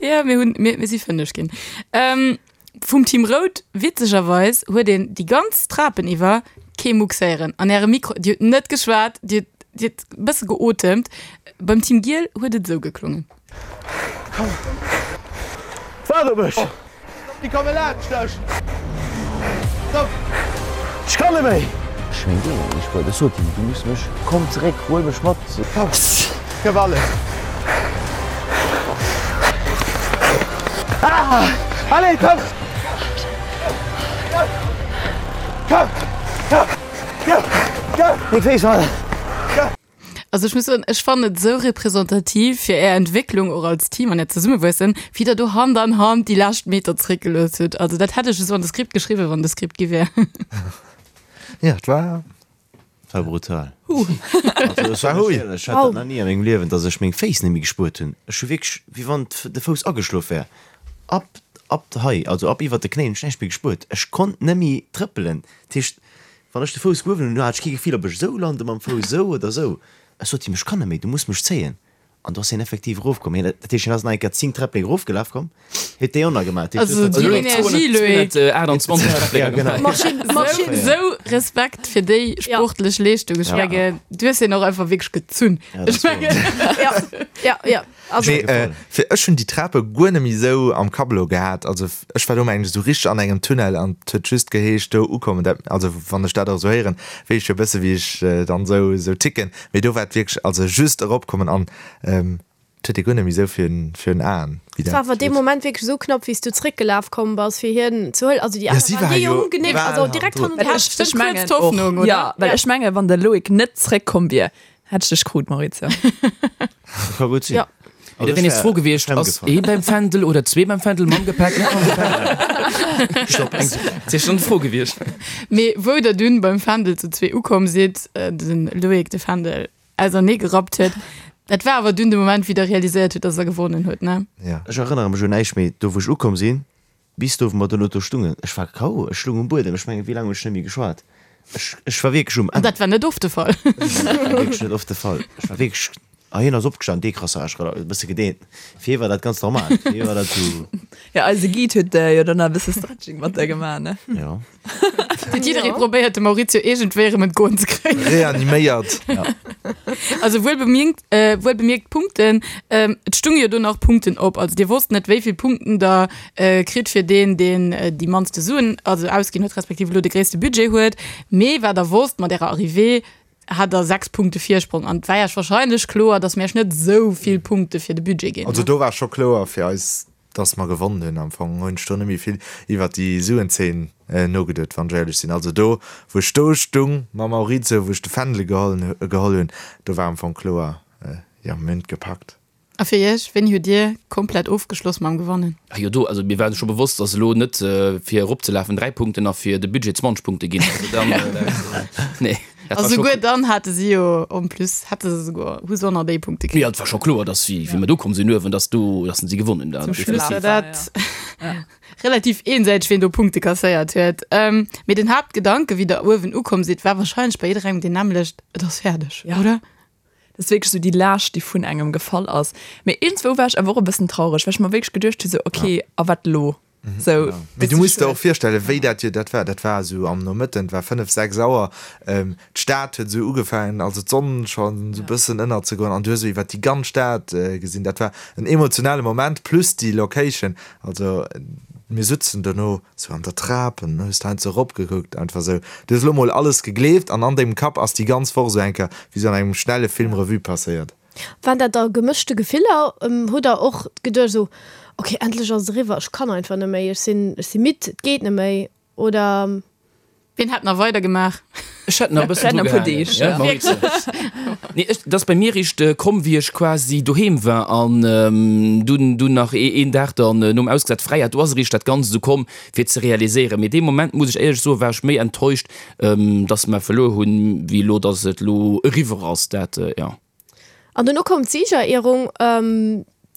Jo, mir hunn, mir mir si fënneg ginn. Vum Team Rout, witzegerweis huet een déi ganz Trapen iwwer kee Mucks héieren an ärem Mikro. Dir hutt net geschwat, dir hutt e bësse geotemt. Beim Team Giel huet et esou geklongen. Waart op mech! Déi komme laanscht dech! Stopp! Ech kann net méi! Ech meng deen net méi spueren. Ech sot him, du muss mech, komm zeréck, huel mech mat. Komm, gëff alles. Ah! Allez, komm! Komm! Komm! Komm! Komm! Meng Féiss fallen. Komm! Also ech muss soen, ech fannen et esou representativ fir är Entwécklung och als Team an äert Zesummewuessen, wéi der do Hand an Hand déi lescht Meter zeréckgelooss hutt. Also dat hätt ech esou an de Skript geschriwwen, wann de Skript gi wär. Ja, et war. War brutal. Also ech war éierlech, ech hat dat nach ni a mengem Liewen, dass ech meng Féiss net méi gespuert hunn. Ech hu wierklech, wéi wann de Fouss ageschlof wär, ab, ab hei, also ab iwwert de Knéien hunn ech näischt méi gespuert. Ech konnt net méi trëppelen. Dat heescht, wann ech de Fouss gehuewen hunn, hat ech kee Gefill, ob ech esou lande mam Fouss, esou oder esou. Ech sot him, ech kann net méi, du muss mech zéien. An do ass hien effektiv erofkomm. Hien, dat heescht, hien ass nach eng Kéier 10 Träpplek erofgelaf komm, huet déi och nach gemaach. Dat heescht, Also déi Energie, Loé. 228 Träpplek. Ja, genau. Maschinn, Maschinn. Esou Respekt fir déi sportlech Leeschtung. Ech mengen, du hues hien och einfach wierklech gezunn. Ja, dat Ech mengen. Ja, ja, ja. Also. Mee fir ech hunn déi Trape guer net méi esou am Kapp elo gehat. Also ech war do mengen ech esou richteg an engem Tunnel an et huet just geheescht do ukommen. Dat, also wann ech dat och esou héieren, weess ech jo e bësse wéi ech dann esou esou ticken. Mee do war et wierklech, also just eropkommen an et huet ee guer net méi esou virun virun Aen, wéi Et war dat awer dee huet. Moment wierklech esou knapp, wéi s du zréckgelaf komm bass, fir hien ze huelen. Also déi Ja, aner si waren war déi jo hu genéckt, bal also direkt hannendrun. hannendrun. Well ech, ech mengen och, ja, well ech mengen, wann de Loïc net zréckkomm wier, hätt ech dech krut, Maurizio. Dat ka gutt sinn. Ja. Mee da wär nees d'Fro gewiescht, ass ee beim Fändel oder zwee beim Fändel, mam Gepäck, net mam Gepäck? Stopp, eng Sekonn. Dat wier schonn d'Fro gewiescht. Mee wou der dunn beim Fändel zu zwee ukomm sidd, den Loïc de Fändel ausernee gerappt huet, dat war awer dunn de Moment, wéi der realiséiert hutt, dass der gewonnen hutt, ne? Ja. Ech erënnere mech un näischt méi, do wou ech ukomm sinn, bis do wou mer dono do stungen. Ech war KO, ech lung um Buedem. Ech mengen, wéi laang hunn ech net méi geschwat? Ech, ech war wierklech um An Enn. dat war net oft de Fall. Dat war wierklech net oft de Fall. Ech war wierklech, a hien ass opgestan, Décrassage, e bësse gedeent. Fir hie war dat ganz normal. Fir hie war dat sou. Ja, eise Guide huet jo dann nach e bësse Stretching mat der gemaach, ne? Jo. Huet jidderee probéiert, de Maurizio iergendwéi erëm entgoen ze kréien. Reaniméiert. Also wuel bemierkt, wuel bemierkt Punkten, et stunge jo do nach Punkten op. Also dir wosst net, wéi vill Punkten der kritt fir deen, deen déi mannste Suen also ausginn huet, respektiv elo de gréisste Budget huet. Mee wat der wosst, mat ärer Arrivée hat der 6 Punkte Virsprong an et war iech wahrscheinlech kloer, datt mir iech net esou vill Punkte fir de Budget ginn. Also do war scho kloer fir eis, datt mer gewonnen hunn. Am Fong hunn ech do net méi vill iwwert déi Suenzeen nogeduet, wann ech éierlech sinn. Also do wou ech do stung mam Maurizio, wou ech de Fändel geholl hunn, do war am Fong kloer, jo mir hunn et gepackt. A fir Iech, wéini hutt Dir komplett ofgeschloss mam Gewannen? Ah jo, do, also mir waren scho bewosst, dass elo net fir eropzelafen 3 Punkten a fir de Budget 20 Punkte ginn. Also dann, nee, dat A war scho souguer dann hate si jo en plus, hätte se souguer, hu se och nach déi Punkte kritt. Jo, et war scho kloer, dass wéi wéi mer do komm sinn uewen, dass do, dass se gewonnen hunn. Zum Schluss war dat relativ eensäiteg, wien do Punkte kasséiert huet. Mee den Haaptgedanke, wéi Der uewen ukomm sidd, war wahrscheinlech bei jidderengem deen nämmlecht, Et ass fäerdeg, oder? Dat ass wierklech esou déi Laascht, déi vun engem gefall ass. Mee iergendswou war ech awer och e bëssen traureg, well ech mer wierklech geduecht hu sou, okay, a wat elo? Sou, Mee du muss der och virstellen, wéi dat jo dat war. Dat war esou am Nomëtten, et war 5, 6 Auer, d'Stad huet esou ugefaangen, also d'Sonn schonn esou e bëssen ënnerzegoen an du hues esou iwwer déi ganz Stad gesinn. Dat war en emotionale Moment, plus déi Location. Also mir sutzen dono esou an der Trap an hues de heiansdo eropgekuckt, einfach esou. Du hues elo mol alles gegleeft an an dengem Kapp ass déi ganz Woch esou eng Kéier wéi esou an engem schnelle Film Revue passéiert. Waren dat da gemëschte Gefiller? Hutt der och geduecht esou, ok, endlech ass et eriwwer, ech kann einfach net méi, ech sinn, ech si midd, et geet net méi, oder? Wien hätt nach weider gemaach? Ech hätt nach e bëssen dru gehaangen. Nee, ech, dat ass bei mir eréischt komm, wéi ech quasi doheem war an dunn, dunn nach een Dag dann nom Ausgesat fräi hat. Do ass eréischt dat Ganzt esou komm, fir ze realiséieren. Mee dee Moment, muss ech éierlech soen, war ech méi enttäuscht, dass mer verluer hunn, wéi elo, dass et elo eriwwer ass. Dat, jo. An dono koum d'Siegerehrung.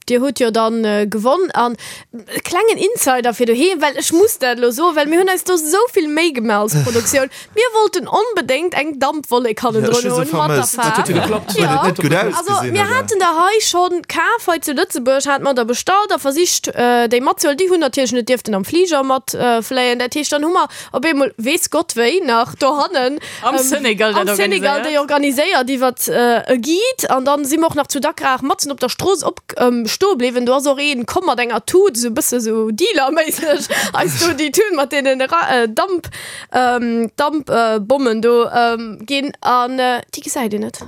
Dir hutt jo dann gewonn. An e klengen Insider fir doheem, well ech muss dat elo soen, well mir hunn eis do esou vill Méi gemaach als Produktioun. Mir wollten onbedéngt eng Dampwollek hannendrun hunn mat der Faarf. Jo, also mir haten der hei schonn kaf, hei zu Lëtzebuerg hate mer der bestallt a versicht déi matzehuelen. Déi hunn natierlech net dierften am Fliger matfléien. Dat heescht, dann hu mer op eemol, weess Gott wéi, nach dohannen Am Senegal dat Am Senegal déi organiséiert iwwert e Guide an dann si mer och nach zu Dakar matzen op der Strooss op stoe bliwwen. Do ass och een komm mat enger Tut, esou e bësse sou Dealer-méisseg eis do déi Tut mat deenen Damp Dampbommen do ginn an déi gesäit een net.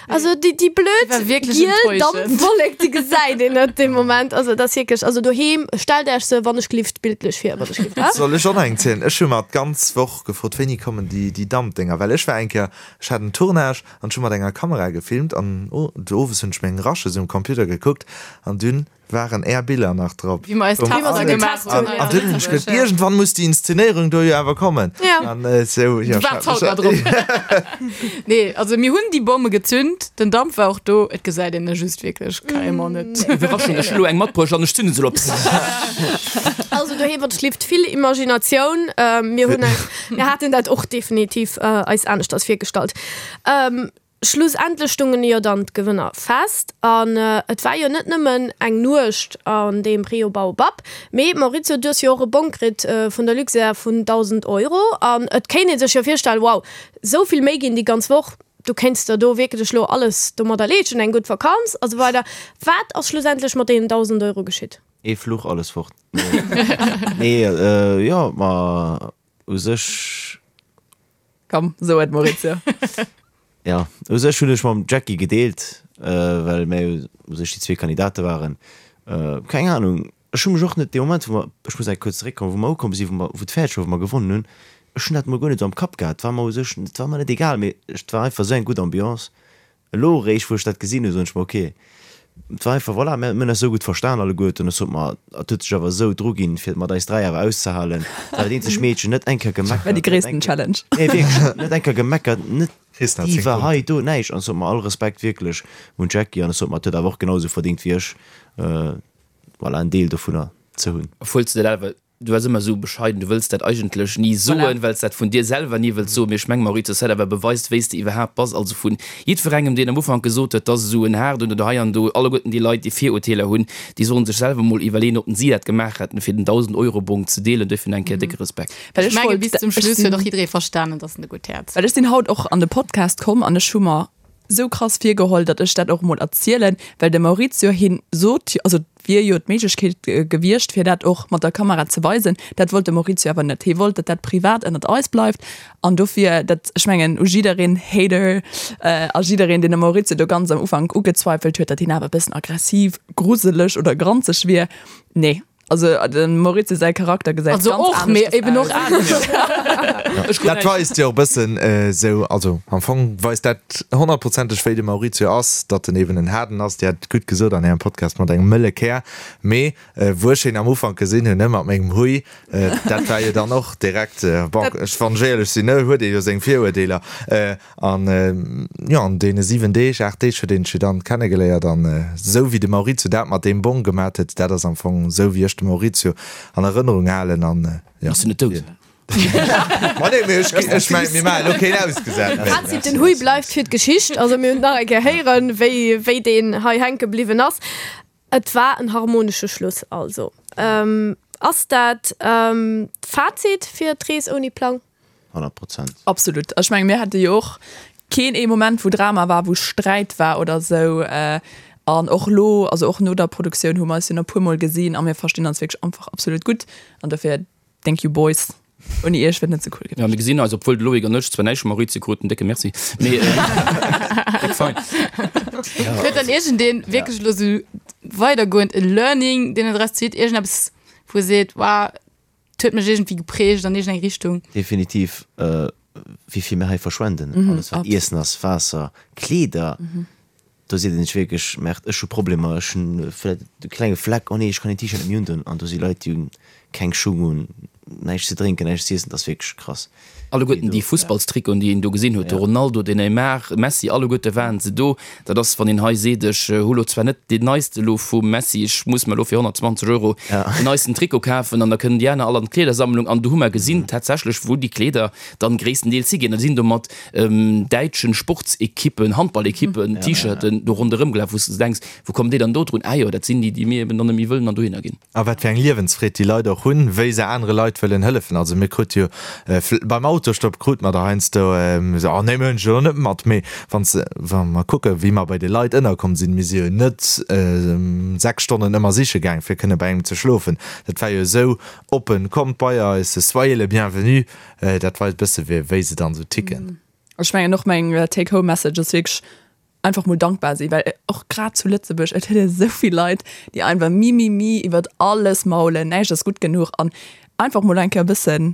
Also déi déi blöd giel Dampwollek déi gesäit een net dee Moment. Also dat ass wierklech, also doheem stellt Äech se wann ech glift bildlech vir, wann ech glift. Soll ech och nach eng zielen? Ech hu mer d'ganz Woch gefrot, wéini kommen déi déi Dampdénger, well ech war eng Kéier, ech hat en Tournage an ech hu mat enger Kamera gefilmt an owes hunn ech meng Rushes um Computer gekuckt an dunn waren är Biller nach drop. Wéi mer eis Tester gemaach hunn. An dunn hunn ech geduet, iergendwann muss déi Inszenéierung do jo awer kommen. An esou, jo. Du waarts haut nach drop. Nee, also mir hunn déi Bomme gezünt, den Damp war och do, et gesäit een e just wierklech carrément net. Iwwerraschung, ech hunn elo eng matbruecht an ech zünde se elo op. Also doheem wann schlift vill Imaginatioun. Mir hunn eis, mir haten dat och definitiv eis aneschters virgestallt. Schlussendlech stungen jo dann d'Gewënner fest an et war jo net nëmmen eng Nuecht an deem Rio Baobab, mee Maurizio du hues jo och e Bong kritt vun der Luxair vun 1.000 Euro an et kéint ee sech jo virstellen, wow, esou vill Méi ginn déi ganz Woch, du kéints der do wierklech elo alles domadder leeschten, eng gutt Vakanz a sou weider. Wat ass schlussendlech mat deenen 1.000 Euro geschitt? Ee Fluch, alles fort. Nee, jo, ma u sech. Komm, so et Maurizio. Jo, u sech hunn ech mam Jackie gedeelt, well mir u sech déi zwee Kandidate waren. Keng Anung, ech hu mech och net dee Moment, wou mer, ech muss eng kuerz zeréckkommen, wou mer ukomm sinn, wou mer, wou et fäerdeg war, wou mer gewonnen hunn, ech hunn dat mol guer net esou am Kapp gehat. Et war mer u sech, et war mer net egal, mee et war einfach esou eng gutt Ambiance. Elo eréischt, wou ech dat gesinn hunn, soen ech mer, ok, et war einfach, voilà, mir hunn eis esou gutt verstan alleguerten. Ech sot mer, et huet sech awer esou druginn, fir et mat eis 3 awer auszehalen. Et war dat eenzegt Meedchen, net eng Kéier gemeckert. War déi gréissten Challenge. Nee, wierklech, net eng Kéier gemeckert, net Diva hei, do, näischt. An ech sot mer, all Respekt wierklech un d'Jackie. An ech sot mer, et huet awer och genau esou verdéngt wéi ech, voilà, en Deel dovunner ze hunn. Obwuel s de dat awer Du bass ëmmer esou bescheiden, du wëlls dat eigentlech ni soen, well s dat vun dir selwer ni wëlls soen. Mee ech meng, Maurizio, dat awer beweist, wéi s de iwwerhaapt bass. Also vun jiddwerengem, deen am Ufank gesot huet, dass esou en haarden oder hei an do, alleguerten déi Leit, déi Virurteeler hunn, déi sollen sech selwer mol iwwerleeën, ob si dat gemaach hätten, fir den Dausend-Euro-Bong ze deelen. Duerfir nach eng Kéier décke Respekt. Well Ech ech menge wollt, bis zum ech Schluss huet sinn, och jidderee verstanen, dass en e gutt Häerz well ech sinn haut och an de Podcast komm an ech hu mer sou krass virgeholl, datt ech dat och mol erzielen, well de Maurizio hien sot jo, also et wier jo d'Méiglechkeet gewiescht fir dat och mat der Kamera ze weisen, dat wollt de Maurizio awer net, hie wollt, datt dat privat ënnert eis bleift an dofir dat, ech mengen u jiddereen Hater a jiddereen deen de Maurizio do ganz am Ufank ugezweifelt huet, datt hien awer e bëssen aggressiv, gruseleg oder granzeg wier, nee. Also dem Maurizio säi Charakter gesäit Also ganz och, mee aneschters eben och aus. anescht. Dat weist jo och bëssen esou, also am Fong weist dat honnertprozenteg wéi de Maurizio ass, datt en eben en Haarden ass. Dir hat et gutt gesot an Ärem Podcast mat engem mëlle Kär. Mee wou ech hien am Ufank gesinn hunn, ne, mat mengem Hui, dat war jo dann och direkt, bon, ech, wann ech éierlech sinn, ne, huet ee jo seng Viruerteeler. An jo, an deene 7 Deeg, 8 Deeg huet een sech jo dann kennegeléiert. An esou wéi de Maurizio dat mat deem Bong gemat huet, dat ass am Fong esou wéi ech de Maurizio an Erënnerung halen. An jo. Ass en net dout? Ma nee, mee ech, ech mengen, mir maachen elo keen ausgesat méi. Fazit, Den Hui bleift fir d'Geschicht. Also mir hunn nach eng Kéier héieren, wéi, wéi deen hei hänke bliwwen ass. Et war en harmonesche Schluss also. Ass dat d'Fazit fir d'Rees ouni Plang? 100 Prozent. Absolut. Ech menge mir hate jo och keen ee Moment, wou Drama war, wou Sträit war oder esou. An och elo, also och no der Produktioun hu mer eis jo nach e puermol gesinn a mir verstinn eis wierklech einfach absolut gutt. An dofir thank you boys. Ouni iech wier et net sou cool gewiescht. Jo, mir gesinn eis, obwuel de Loïc an ech zwar näischt vum Maurizio kruten, décke Merci, mee déck fein. Huet dann iergendeen wierklech elo sou weidergoend e Learning, deen en draus zitt, iergendeppes, wou e seet, Wow, et huet mech iergendwéi geprägt an iergendeng Richtung? Definitiv, wéi vill mir hei verschwenden, alles wat Iessen ass, Waasser, Kleeder, Do seet een sech wierklech, Merde, ech hu Problemer, ech hunn vläicht e klenge Fleck, oh nee, ech kann deen T-Shirt net méi undon. An do si Leit, déi hunn keng Schung un, näischt ze drénken, näischt z'iessen, dat ass wierklech krass. Alleguerten déi Fussballstrikoten, déi een do gesinn huet, de Ronaldo, den Neymar, Messi, alleguerte waren se do. Dat ass, wann een hei seet, ech hu lo zwar net deen neiste lo vum Messi, ech muss mer lo fir 120 Euro den neisten Trikot kafen an da kënnen déi aner all an d'Kleedersammlung. An do hu mer gesinn tatsächlech, wou déi Kleeder dann gréisstendeels higinn. Da sinn do mat däitschen Sportsequippen, Handballequippen, T-Shirten do ronderëm gelaf, wou s de denks, wou kommen déi dann do drun? Ah jo, dat sinn déi, déi mir eben dann net méi wëllen an dohinner ginn. A wat fir eng Liewensfreed déi Leit och hunn, wéi se anere Leit wëllen hëllefen. Also mir krute jo beim Autostopp krute mer der heiansdo esou, oh nee, mir hunn dech elo net mat. Mee wann s, wa mer kucken, wéi mer bei de Leit ënnerkomm sinn, mir si jo net 6 Stonnen ëmmer siche gaang, fir kënne bei engem ze schlofen. Dat war jo esou oppen, kommt bei eis, soyez le bienvenu. Dat weist bësse wéi se dann sou ticken. Ech mengen och meng Take Home Message ass wierklech einfach mol dankbar sinn, well och grad zu Lëtzebuerg, et huet ee sou vill Leit, déi einfach mi mi mi iwwert alles maulen, näischt ass gutt genuch an einfach mol eng Kéier e bëssen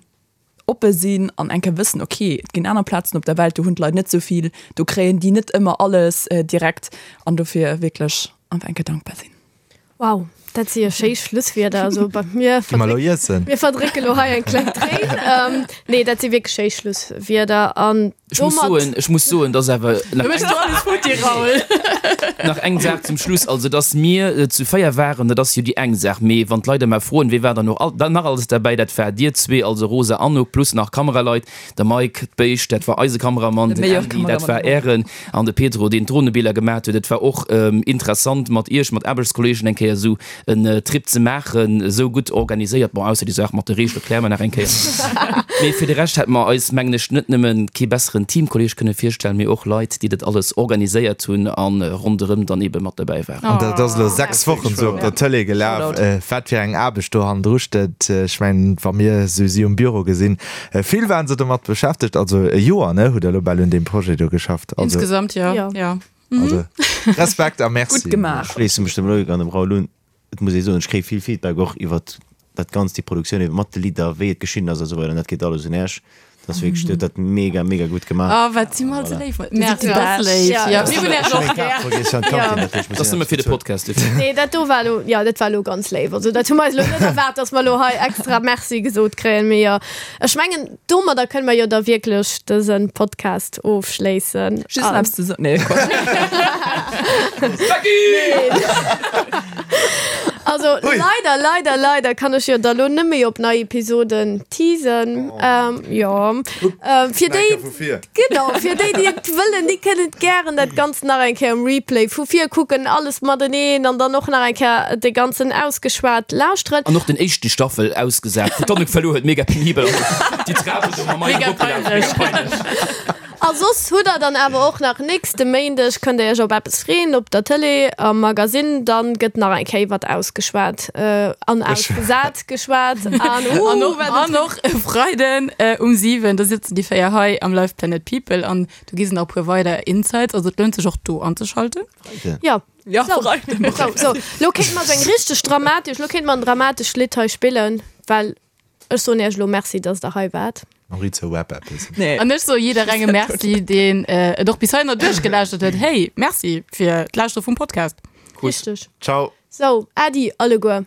oppe sinn an eng Kéier wëssen, ok, et ginn aner Plazen op der Welt, do hunn d'Leit net sou vill, do kréien déi net ëmmer alles direkt an dofir wierklech einfach eng Kéier dankbar sinn. Wow, dat si jo schéi Schlusswierder. Also bei mir Gi mer lo iessen. Mir verdrécke lo hei eng kleng Tréin. Ähm, nee, dat si wierklech schéi Schlusswierder. An Ech muss domat. soen, ech muss soen, dass awer nach Du méchs do alles futti, Raoul. Nach eng Saach zum Schluss, also dass mir zu 4 waren, dat ass jo déi eng Saach, mee wann d'Leit ëmmer froen, wee war dann och all, nach alles derbäi, dat war dir zwee, also Rosa, Anouk, plus nach Kameraleit, de Mike, d'Béischt, dat war eise Kameramann, De den meilleur Andy, dat Kameramann war der Welt. ären. An de Pedro, deen d'Dronebiller gemaat huet. Et war och interessant mat iech, mat Aarbechtskolleegen eng Kéier esou en Trip ze maachen, esou gutt organiséiert. Bon, ausser déi Saach mat de Reegele kläre mer nach eng Kéier. Mee fir de Rescht hätte mer eis, mengen ech, net nëmme kee besseren Teamkolleeg kënne virstellen, mee och Leit, déi dat alles organiséiert hunn a ronderëm dann eebe mat derbäi waren. An dat ass elo 6 Wochen esou op der Tëlee gelaf. Wat fir eng Aarbecht do hannendru steet, ech mengen, wa mir esou si um Büro gesinn, Vill waren se domat beschäftegt, also e Joer, ne, hutt der elo bal un deem Projet do geschafft. Also, Insgesamt, jo, Jo. jo. also Respekt a Merci. Gutt gemaach. Schléisse mech dem Loïc an dem Raoul un. Et muss ee soen, ech kréie vill Feedback och iwwert dat Ganzt, déi Produktioun ebe mat de Lidder, wéi et geschnidden ass a sou weider an dat geet alles un Äech. Dat ass wierklech, Dir hutt dat mega, mega gutt gemaach. Oh, wat si mer all sou léif. Merci, dat ass léif. Ja. Jo, mir hunn Äech och gär. Dat ass nëmme fir de Podcast dofir. Nee, dat do war elo, jo, dat war elo ganz léif. Also dat hu mer eis elo net erwaart, dass mer elo hei extra Merci gesot kréien. Mee jo, ech mengen, domadder kënne mer jo da wierklech dëse Podcast ofschléissen. Just nach eppes ze soen. Nee, Quatsch. Also leider, leider, leider kann ech jo da lo net méi op nei Episoden teasen. Ähm, jo. Ähm, fir déi, genau, fir déi, déi et wëllen, déi kënnen et gären dat Ganzt nach eng Kéier um Replay vu vir kucken, alles mateneen an dann och nach eng Kéier de Ganzen ausgeschwat lauschteren. An och den éischten Staffel ausgesat, wou d'Annouk verluer huet, mega penibel, also déi Trapen do mam Mike Mega eropgelaf, mega peinlech. peinlech. A soss hutt der dann awer och nach nächste Méindeg, kënnt der iech op eppes freeën op der Tëlee am Magasinn, dann gëtt nach eng Kéier iwwert ausgeschwat an ausgesat geschwat an An uh och, wat an och e Freiden um 7, da sëtzen déi 4 hei am Live Planet People an do gi se nach e puer weider Insights, also et lount sech och do anzeschalten. Jo, Ja, sou, Freiden. sou, sou, lo kéinte mer sou eng richteg dramatesch, lo kéinte mer en dramatescht Lidd hei spillen, well Ech soen iech elo Merci, dass der hei waart. Maurizio Web eppes. Nee. An ech soe jidderengem Merci, deen et och bis heihinner duerchgelauschtert huet. Hey, Merci fir d'Lauschtere vum Podcast. Richteg. Ciao. Sou, Äddi alleguer.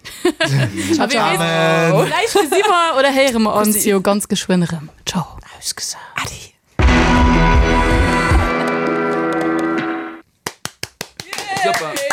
A wie weess, vläicht gesi mer oder héiere mer ons jo ganz geschwënn erëm. Ciao. Ausgesat. Äddi. Super.